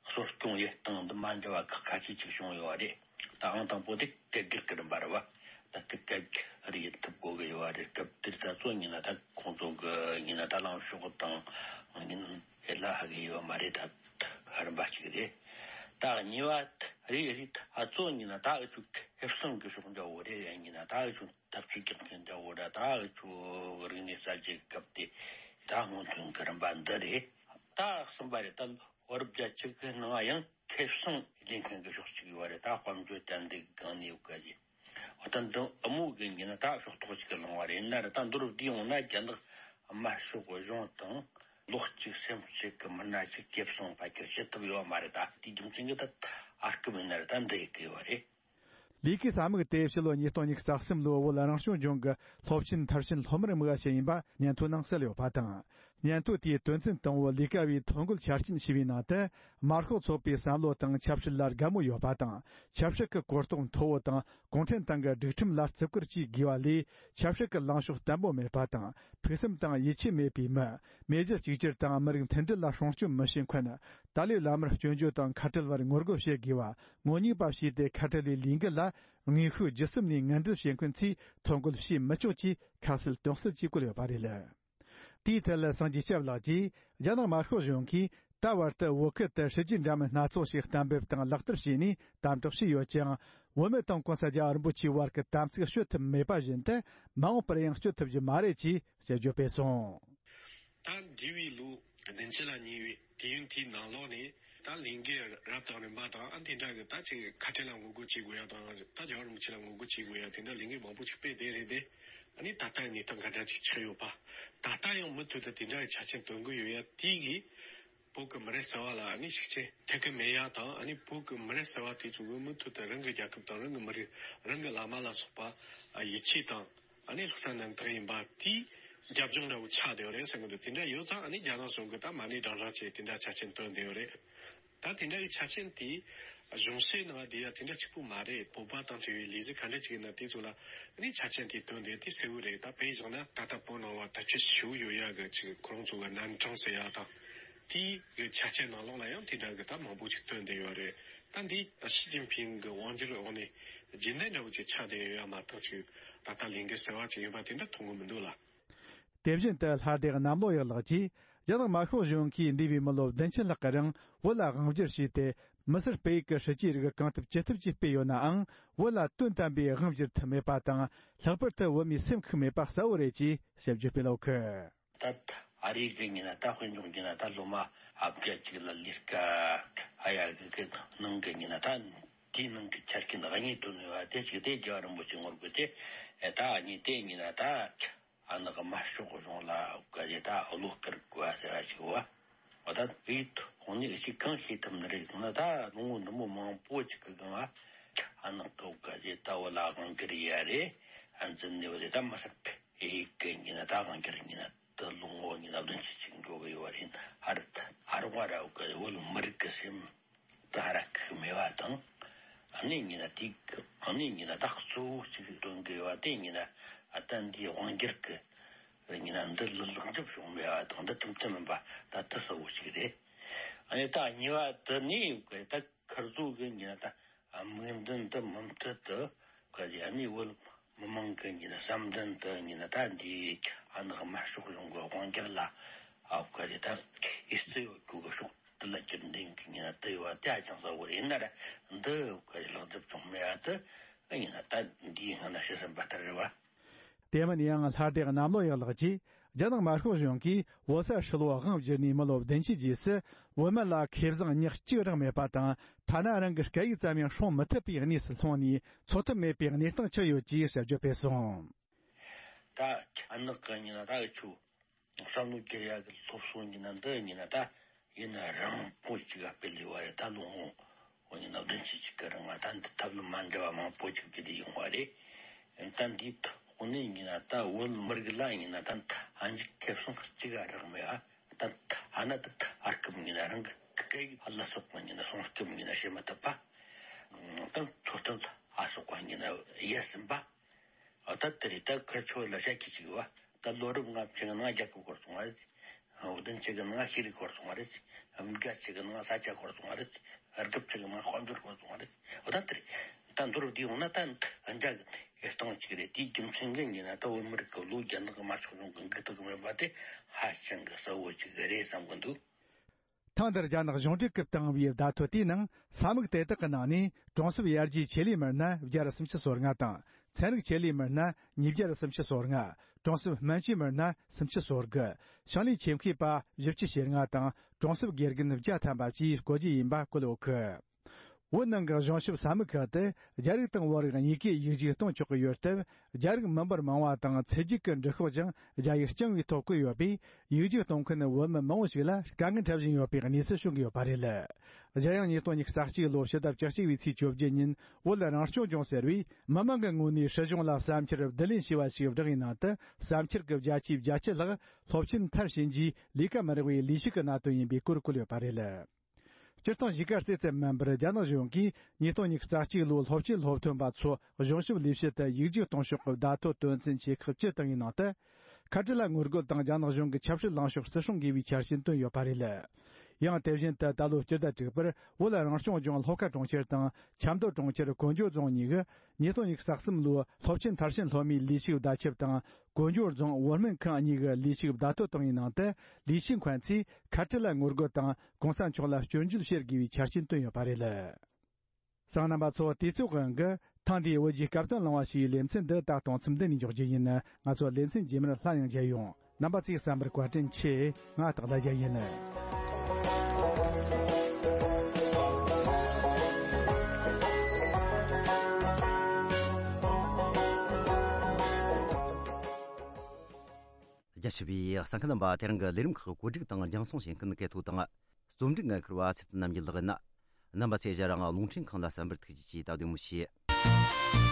གསོ་སྐྱོང་ཡེད་སྟངས་འདི་མ་འདྲ་བ་ཁག་ཁ་ཤས་ཅིག་བྱུང་ཡོད་རེད། ད་ཨང་དང་པོ་དེ་སྐད་སྒྱུར་གྱི་རིམ་པ་རེད་བ། ད་དེ་སྐད་སྒྱུར་ཡེད་ཐུབ་དགོས་ཀྱི་ཡོད་རེད། སྐབས་དེར་ད་གཙོ་ཡིན་ན་ད་ཁོང་ཚོ་གི་ཡིན་ན་ད་ལངས་ཕྱོགས་དང་ཡིན་ཧེ་ལ་ཧ་གི་ཡོད་མ་རེད། ད་རིམ་པ་གཅིག་རེད། ད་གཉིས་པ་རེད་རེད། ད་གཙོ་ཡིན་ན་ད་འུ་ཆོ་ཁེ་བཟང་གི་ཕྱོགས་འདྲ་བོ་རེད། ཡིན་ན་ད་འུ་ཆོ་ཐབས་ཇུས་རྒྱག་མཁན་འདྲ་བོ་ར། ད་འུ་ཆོ་རིག་གནས་གསར་བརྗེ་སྐབས་དེ་ད་སྔོན་ཐོན་གྱི་རིམ་པ་འདི་རེད། ད་གསུམ་པ་རེད། ད་བོད་རབས་བརྒྱད་ཅུ་གི་ནང་ཡང་ཁེ་བཟང་ལེན་མཁན་གྱི་ཕྱོགས་གཅིག་ཡོད་རེད། ད་དཔལ་འབྱོར་དར་འདེགས་གི་སྒང་ནས་ཡོད་ག་རེད། འོ་ད་འདི་དབུ་མོ་གི་ཡིན་ན་ད་ཕྱོགས་གཏོགས་གཅིག་གི་ལངས་པ་རེད། ཡིན་ན་ར་ད་མདོར་བསྡུས་ཡོང་ན་རྒྱ་ནག་དམར་ཤོག་གཞུང་དང་ལོ་གཅིག་སེམས་གཅིག་གི་མི་སྣ་གཅིག་ཁེ་བཟང་ཕལ་ཆེར་བྱེད་ཐུབ་ཡོད་མ་རེད། ད་དེའི་རྒྱུ་མཚན་གྱིས་ད་ཨར་སྐུ་མི་སྣ་ར་ད་འདི་ཡི་གི་ཡོད་རེད། ལས་ཀའི་ས་མིག་དེ་ཕྱི་ལོ་ཉིས་སྟོང་ཉི་ཤུ་རྩ་གསུམ་ལོའི་བོད་རང་སྐྱོང་ལྗོངས་ཀྱི་སློབ་ཆེན་མཐར་ཕྱིན་སློབ་མར་དམིགས་པ་ཞིག་ཡིན་པ་སྙན་ཐོ་ནང་གསལ་ཡོད་པ་དང་། སྙན་ཐོ་དེའི་དོན་ཚན་དང་པོ་ལས་ཀ་བའི་ཐོ་འགོད་ཆ་རྐྱེན་ཞེས་པའི་ནང་དུ། དམར་ཤོག་ཚོགས་པའི་བསམ་བློ་དང་ཆབ་སྲིད་ལ་དགའ་མོས་ཡོད་པ་དང་། ཆབ་སྲིད་ཀྱི་གོ་རྟོགས་མཐོ་བོ་དང་། གུང་ཁྲན་ཏང་གི་སྒྲིག་ཁྲིམས་ལ་བརྩི་བཀུར་བཅས་དགོས་པ་ལས། ཆབ་སྲིད་ཀྱི་ལངས་ཕྱོགས་བརྟན་པོ་མེད་པ་དང་། ཕུགས་བསམ་དང་ཡིད་ཆེས་མེད་པའི་མི། མི་གཞི་གཅིག་གྱུར་དང་མི་རིགས་མཐུན་སྒྲིལ་ལ་སྲུང་སྐྱོབ་མི་བྱེད་མཁན། ཏཱ་ལའི་བླ་མར་སྐྱོན་བརྗོད་དང་ཁ་བྲལ་བར་ངོ་རྒོལ་བྱེད་དགོས་པ། ངོ་ཉེས་པ་བྱས་ཏེ་ཁ་བྲལ་བའི་ལས་འགུལ་ལ་དངོས་ཤུགས་བརྒྱུད་གསུམ་ནས་ངན་འབྲེལ་བྱེད་མཁན་ཚོས་ཐོ་འགོད་བྱེད་མི་ཆོག་ཅེས་ཁ་གསལ་དོན་གསལ་གྱིས་བཀོད་ཡོད་པ་རེད། དེའི་ཐད་ལ་སངས་རྒྱས་སྐྱབས་ལགས་ཀྱིས། རྒྱ་ནག་དམར་ཤོག་གཞུང་གིས་ད་བར་དུ་བོད་ཁུལ་དུ་སྲིད་ཇུས་འདྲ་མིན་སྣ་ཚོགས་ཤིག་གཏན་འབེབས་དང་ལག་བསྟར་བྱས་ནས་དམ་དྲག་བྱས་ཡོད་ཀྱང་། བོད་མི་དང་གོང་ས་རྒྱལ་བ་རིན་པོ་ཆེའི་བར་གྱི་དམ་ཚིག་གཅོད་ཐུབ་མེད་པ་བཞིན་དུ། མ་འོངས་པར་ཡང་གཅོད་ཐུབ་རྒྱུ་མ་རེད་ཅེས་དཔྱད་བརྗོད་སྤེལ་སོང་། ད་འདས་པའི་ལོ་བདུན་ཅུ་ལ་ཉེ་བའི་དུས་ཡུན་དེའི་ནང་ལོགས་ནས། ད་ལས་འགུལ་རབ་དང་རིམ་པ་དང་། ཨ། དེ་འདྲ་གི་ད་ཅིག་ཁ་བྲལ་ལ་ངོ་རྒོལ་བྱེད་དགོས་ཡ་དང་། ད་རྒྱལ་བ་རིན་པོ་ཆེ་ལ་ངོ་རྒོལ་བྱེད་དགོས་ཡ། དེ་འདྲ་ལས་འགུལ་མང་པོ་ཅིག་སྤེལ་བསྡད་རེད་དེ། ཨ་ནི་ད་ལྟ་གནས་སྟངས་ག་འདྲ་ཅིག་ཆགས་ཡོད་པ། ད་ལྟ་ཡང་མུ་མཐུད་དུ་དེ་འདྲ་གི་ཆ་རྐྱེན་བཏོན་གི་ཡོད་ཡ་དེ་གིས། བོད་ཀྱི་མི་རབས་གསར་བ་ལ་ཨ་ནི་ཤུགས་རྐྱེན་ཐེབས་གི་མེད་ཡ་དང་། ཨ་ནི་བོད་ཀྱི་མི་རབས་གསར་བ་དེ་ཚོ་གིས་མུ་མཐུད་དུ་རང་གི་རྒྱལ་ཁབ་དང་། རང་གི་མི་རིགས། རང་གི་བླ་མ་ལ་སོགས་པ་ཡིད་ཆེས་དང་། ཨ་ནི་ལྷག་བསམ་རྣམ་དག་ཡིན་པ་དེའི་རྒྱབ་ལྗོངས་འདྲ་བོ་ཆགས་བསྡད་ཡོད་རེད་བསམ་གི་འདུག་དེ་འདྲ་ཡོད་ཙང་། ཨ་ནི་རྒྱ་ནག་གཞུང་གིས་ད་མ་ཎི་བགྲང་བགྲང་བྱས་དེ་འདྲ་ཆ་རྐྱེན་བཏོན་བསྡད་ཡོད་རེད། ད་དེ་འདྲ་གི་ཆ་རྐྱེན་དེ་གཞུང་བཤད་ནང་བསྡད་ཡ་དེ་འདྲ་གཅིག་པུ་མ་རེད། བོད་པ་དང་འབྲེལ་བའི་ལས་གཞི་ག་འདྲ་ཅིག་ཡིན་ན་དེ་ཚོ་ལ་ཨ་ནི་ཆ་རྐྱེན་དེ་བཏོན་བསྡད་དེ་གསལ་བོ་རེད། ད་དཔེ་བཞག་ན་ད་ལྟ་བོད་ནང་ལ་དར་ཁྱབ་ཞེ་པོ་ཡོད་ཡ་གི་ཅིག་ཁོ་རང་ཚོ་གི་རྣམ་གྲངས་ཟེར་ཡ་དང་། དེའི་གི་ཆ་རྐྱེན་ནང་ལོགས་ལ་ཡང་དེ་འདྲ་གི་ད་མང་པོ་ཅིག་བཏོན་བསྡད་ཡོད་རེད། ད་འདི་ཞི་ཅིན་ཕིང་གི་དབང་སྒྱུར་འོག་ནས་རྒྱུན་ལྡན་འདྲ་བོ་ཅིག་ཆགས་བསྡད་ཡོད་ཡ་མ་གཏོགས། ཅིག་ད་ལྟ་ལས་འགུལ་གསར་བ་ཅིག་ཡིན་པ་དེ་འདྲ་མཐོང་གི་མི་འདུག་ལ། དེ་བཞིན་དུ་ལྷ་སྡེ་གནམ་ལོ་ཡག་ལགས་ཀྱིས། རྒྱ་ནག་དམར་ཤོག་གཞུང་གིས་འདས་པའི་མི་ལོ་བདུན་ཅུ་ལྷག་གི་རིང་བོད་ལ་དབང་བསྒྱུར་བྱས་ཏེ། མི་སེར་སྤེལ་ཡུལ་གྱི་སྲིད་ཇུས་རིགས་གང་ཐུབ་ཅི་ཐུབ་ཀྱིས་སྤེལ་ཡོད་ནའང་། བོད་ལ་དོན་དམ་པའི་དབང་བསྒྱུར་ཐུབ་མེད་པ་དང་། ལྷག་པར་དུ་བོད་མིའི་སེམས་ཤུགས་མེད་པ་གསལ་བོ་རེད་ཅེས་དཔྱད་བརྗོད་སྤེལ་ཡོད་ཀི། ད་ཨ་རི་གི་ཡིན་ན་ད་དཔེ་འཇོག་རྒྱུ་ན། ད་ལོ་མ་ཨ་བརྒྱད་ཅིག་ལ་ལས་ཀ་ཨ་ཡ་གི་གི་ནང་གི་ཡིན་ན། ད་དེའི་ནང་གི་ཆ་རྐྱེན་གཉིས་བཏོན་ཡོད་པ་དེ་གཅིག་དེ་རྒྱལ་བ་རིན་པོ་ཆེ་ངོ་རྒོལ་དེ། ཨེ་ད་གཉིས་དེ་ཡིན་ན་ད་ཨ་ནི་གི་དམར་ཤོག་གཞུང་ལ་ག་རེ་ད་བློ་དཀར་དགོས་པ་ཟེར་བ་ཞིག་བ། འོ་ད་དེའི་ཐོག་ནས་ཅིག་གང་ཤེས་ཐུབ་ནི་རེད་ཟེར་ན། ད་ལོ་ངོ་འདི་མོ་མང་པོ་ཅིག་གི་སྒང་ལ་ ཨ་ནག་གི་བོད་ག་རེ་ད་བོད་ལ་དབང་སྒྱུར་ཡ་རེད། ཨ་འཛིན་ནས་བོད་ད་མི་སེར་ཕེ་ཡིག་གི་ཉིན་ན་ད་དབང་སྒྱུར་ཉིན་ན་ད་ལོ་ངོ་ཉིན་ན་བདུན་ཅུ་ཅིག་འགྲོ་གི་ཡོད་རེད། ཨ་རི་ད་ཨ་རི་བ་ར་བོད་ག་བོད་མི་རིགས་ཀྱི་སེམས་ད་ཧ་ར་ཁུག་མེད་པ་དང་། ཨ་ནི་ཉིན་ན་དེ་ཨ་ནི་ཉིན་ན་ད་གཙོ་བོ་གཅིག་སྟོན་གི་ཡོད་པ་དེ་ཉིན་ན་ཨ་ད་འདི་དབང་སྒྱུར་གི་ཉིན་ན་འདི་ལ་ལེགས་འགྲུབ་བྱུང་མེད་པ་དང་འདི་ཐུམ་ཐུམ་མིན་པ་ད་དུ་གསལ་བོ་ཞིག་རེད། ཨ་ནི་ད་གཉིས་པ་དེ་ནི་ད་ཁིར་ཚོ་གི་ཉིན་ན་ད་དམིགས་འདུན་དུ་མུ་མཐུད་དུ་ག་རེ་ཨ་ནི་བོད་མི་མང་གི་ཉིན་ན་བསམ་འདུན་དུ་ཉིན་ན་ད་འདི་ཨ་ནག་དམར་ཤོག་གཞུང་གི་དབང་སྒྱུར་ལ་ཨ་ག་རེ་ད་ཨི་སི་ཡོད་རྒྱུ་གི་ཕྱོགས་དེ་ལ་རྒྱུན་ལྡན་གི་ཉིན་ན་དུ་ཡོད་པ་དེ་ཧ་ཅང་གསལ་བོ་རེད། ཡིན་ན་ར་འདི་ག་རེ་ལེགས་འགྲུབ་བྱུང་མེད་པ་དེ་ཉིན་ན་ད་འདིའི་སྔ་ན་ཤི་ཟིན་པ་ལྟར་རེད་བ། དེ་མིན་ཡང་ལྷ་སྡེ་གནམ་ལོ་ཡག་ལགས་ཀྱིས་རྒྱ་ནག་དམར་ཤོག་གཞུང་གིས་བོད་ས་ཧྲིལ་བོ་དབང་བསྒྱུར་ནས་མི་ལོ་བདུན་ཅུའི་རྗེས་སུ་བོད་མི་ལ་ཁེ་བཟང་ཉག་གཅིག་རག་མེད་པ་དང་། ཐ་ན་རང་གི་སྐད་ཡིག་ཙམ་ཡང་སྲུང་མི་ཐུབ་པའི་གནས་སུ་ལྷུང་ནས་འཚོ་ཐབས་མེད་པའི་གནས་སྟངས་ཆགས་ཡོད་ཅེས་ཞབས་ཕྱི་ཕུལ་སོང་། ད་ཨ་ནག་གི་ཉིན་ན་ད་འུ་ཆོ་བསམ་བློ་བསྒྱུར་ཡག་གི་སློབ་གསོ་ཉིན་ན་འདི་ཉིན་ན་ད་ཡིན་ན་རང་པོ་གཅིག་ག་སྤེལ་ལས་བ་རེད། ད་ལོ་ངོ་འོ་ཉིན་ན་བདུན་ཅུ་ཅིག་གི་རིང་ང་ད་འདི་ཐབས་ལམ་མ་འདྲ་བ་མང་པོ་ཅིག་བརྒྱུད་དེ་ཡོང་བ་རེད། ད་འདིའི་ཐོག་ནས་ཉིན་ན་ད་བོད་མི་རིགས་ལ་ཉིན་ན་ད་ཨ་འཇིག་ཁེ་བཟང་གཅིག་ག་རག་མེད་ཨ། ད་ཨ་ན་ད་ཨ་སྐུམ་ཉིན་ན་རང་གི་སྐད་ཡིག་ཨ་ལ་སོགས་པ་ཉིན་ན་སྲུང་སྐུམ་ཉིན་ན་བྱེད་མི་ཐུབ་པ། ད་འཚོ་རྟེན་ཨ་སོགས་པ་ཉིན་ན་ཡལ་ཟིན་པ། ཨ་ད་དེ་རེད། ད་ཁིར་ཆོ་ལ་བཤད་ཀྱི་ཅིག་ཡོད་པ། ད་ལོ་རབས་ལྔ་བཅུ་གི་ནང་རྒྱལ་ཁབ་ཤོར་སོང་བ་རེད། བདུན་ཅུ་གི་ནང་ཤེས་རིག་ཤོར་སོང་བ་རེད། བརྒྱད་ཅུ་གི་ནང་ས་ཆ་ཤོར་སོང་བ་རེད། དགུ་བཅུ་གི་ནང་དཔལ་འབྱོར་ཤོར་སོང་བ་རེད། ཨ་ད་དེ་རེད། ད་མདོར་བསྡུས་ཡོང་ན་ད་འཇའ་གི་སྟེང་གཅིག་རེད། དེའི་རྒྱུ་མཚན་གྱིས་ཡིན་ན་ད་བོད་མི་རིགས་ཀྱི་ལོ་རྒྱ་ནག་གི་དམར་ཤོག་གཞུང་གི་འགུག་ཐུབ་ཀྱི་མེད་པ་དེ་ཧ་ཅང་གི་གསལ་བོ་ཅིག་རེད་བསམ་གི་འདུག། ཐེངས་འདིར་རྒྱ་ནག་གཞུང་འབྲེལ་སྐུལ་བཏང་བའི་བརྡ་ཐོ་དེའི་ནང་ས་མིག་དེ་དག་གི་ནང་ནས་གྲོང་གསེབ་ཡར་རྒྱས་ཆེད་ལས་མི་སྣ་བརྒྱ་ར་སུམ་ཅུ་སོ་ལྔ་དང་། ཚན་རིག་ཆེད་ལས་མི་སྣ་ཉིས་བརྒྱ་ར་སུམ་ཅུ་སོ་ལྔ། གྲོང་གསེབ་སྨན་བཅོས་མི་སྣ་སུམ་ཅུ་སོ་དགུ། ཞིང་ལས་ཆེད་མཁས་པ་བཞི་བཅུ་ཞེ་ལྔ་དང་། གྲོང་གསེབ་དགེ་རྒན་བརྒྱ་ཐམ་པ་བཅས་བསྐོ་རྒྱུ་ཡིན་པ་བཀོད་ཡོད་གི། བོད་ནང་གི་གཞུང་ཞབས་ས་མིག་ཁག་ཏུ་རྒྱ་རིགས་དང་བོད་རིགས་གཉིས་ཀས་ཡིག་རྒྱུགས་གཏོང་ཆོག་གི་ཡོད་སྟབས། རྒྱ་རིགས་མི་འབོར་མང་བ་དང་ཚེ་རྒྱུགས་ཀྱི་འབྲི་ཤོག་ཀྱང་རྒྱ་ཡིག་རྐྱང་བའི་ཐོག་བཀོད་ཡོད་པས། ཡིག་རྒྱུགས་གཏོང་མཁན་བོད་མི་མང་བོ་ཞིག་ལ་དཀའ་ངལ་འཕྲད་བཞིན་ཡོད་པའི་གནས་ཚུལ་བྱུང་གི་ཡོད་པ་རེད། གཞན་ཡང་ཉིས་སྟོང་ཉི་ཤུ་རྩ་གཅིག་ལོའི་ཕྱི་ཟླ་བཅུ་གཅིག་པའི་ཚེས་བཅོ་བརྒྱད་ཉིན་བོད་རང་སྐྱོང་ལྗོངས་ཟེར་བས་མི་མང་གི་ངོས་ནས་སྲིད་གཞུང་ལ་བསམ་འཆར་བསྡུ་ལེན་བྱས་པ་ཞིག་བསྒྲགས་པའི་ནང་དུ། བསམ་འཆར་གྱི་བརྒྱ་ཆའི་བརྒྱད་ཅུ་ལྷག་སློབ་ཆེན་མཐར་ཕྱིན་རྗེས་ལས་ཀ་མི་རག་པའི་ལས་ཞུགས་ཀྱི་གནད་དོན་ཡིན་པའི་སྐོར་བཀོད་ཡོད་པ་རེད། སྤྱིར་བཏང་གཞིས་ཀ་རྩེ་ཙམ་མིན་པར་རྒྱ་ནག་གཞུང་གིས་ཉིས་སྟོང་ཉི་ཤུ་རྩ་གཅིག་ལོའི་སློབ་ཆེན་སློབ་ཐོན་པ་ཚོ་གཞུང་ཞབས་ལས་བྱེད་དུ་ཡིག་རྒྱུགས་གཏོང་ཕྱོགས་ཀྱི་བརྡ་ཐོ་དོན་ཚན་ཆེ་ཁག་བཅུ་བཏང་བའི་ནང་དུ། ཁ་བྲལ་ལ་ངོ་རྒོལ་དང་རྒྱ་ནག་གཞུང་གི་ཆབ་སྲིད་ལངས་ཕྱོགས་བརྩི་སྲུང་དགོས་པའི་འཆར་ཅན་བཏོན་ཡོད་པ་རེད། ཡང་དེ་བཞིན་དུ་ད་ལོའི་སྤྱི་ཟླ་དྲུག་པར་བོད་རང་སྐྱོང་ལྗོངས་ལྷོ་ཁ་གྲོང་ཁྱེར་དང་ཆབ་མདོ་གྲོང་ཁྱེར་ཀོན་ཇོ་རྫོང་གཉིས་ཀྱི་ཉིས་སྟོང་ཉི་ཤུ་རྩ་གསུམ་ལོའི་སློབ་ཆེན་མཐར་ཕྱིན་སློབ་མའི་ལས་ཞུགས་བརྡ་ཁྱབ་དང་། ཀོན་ཇོ་རྫོང་བོད་སྨན་ཁང་གཉིས་ཀྱི་ལས་ཞུགས་བརྡ་ཐོ་བཏང་བའི་ནང་དུ། ལས་བྱེད་མཁན་ཚོས་ཁ་བྲལ་ལ་ངོ་རྒོལ་དང་གོང་ས་མཆོག་ལ་སྐྱོན་བརྗོད་བྱེད་དགོས་པའི་ཆ་རྐྱེན་བཏོན་ཡོད་པ་རེད། གསན་མཁན་རྣམ་པ་ཚོ། དུས་ཚོད་དབང་གིས་ཐེངས་འདིའི་བོད་ཀྱི་སྐབས་དོན་གླེང་བ་ཞེས་པའི་ལེ་ཚན་འདི་ད་གཏོང་མཚམས་འདི་ནས་འཇོག་རྒྱུ་ཡིན། ང་ཚོ་ལེ་ཚན་རྗེས་མར་སླར་ཡང་མཇལ་ཡོང་། རྣམ་པ་ཚོས་གསན་པར་བཀའ་དྲིན་ཆེ། ང་སྟག་ལྷ་རྒྱལ་ཡིན། རྒྱ་ཆེ་བའི་གསན་མཁན་རྣམ་པ། དེ་རིང་གི་ལས་རིམ་ཁག་གོ་སྒྲིག་དང་རྒྱང་སྲིང་བྱེད་མཁན་སྐལ་ཐོ་དང་། རྩོམ་སྒྲིག་འགན་འཁུར་བ་ཚེ་བརྟན་རྣམ་རྒྱལ་ལགས་ཡིན། རྣམ་པ་ཚོས་ཞལ་རང་རླུང་འཕྲིན་ཁང་ལ་གསན་པར་ཐུགས་རྗེ་ཆེ། ད་བདེ་མོ་བྱོས།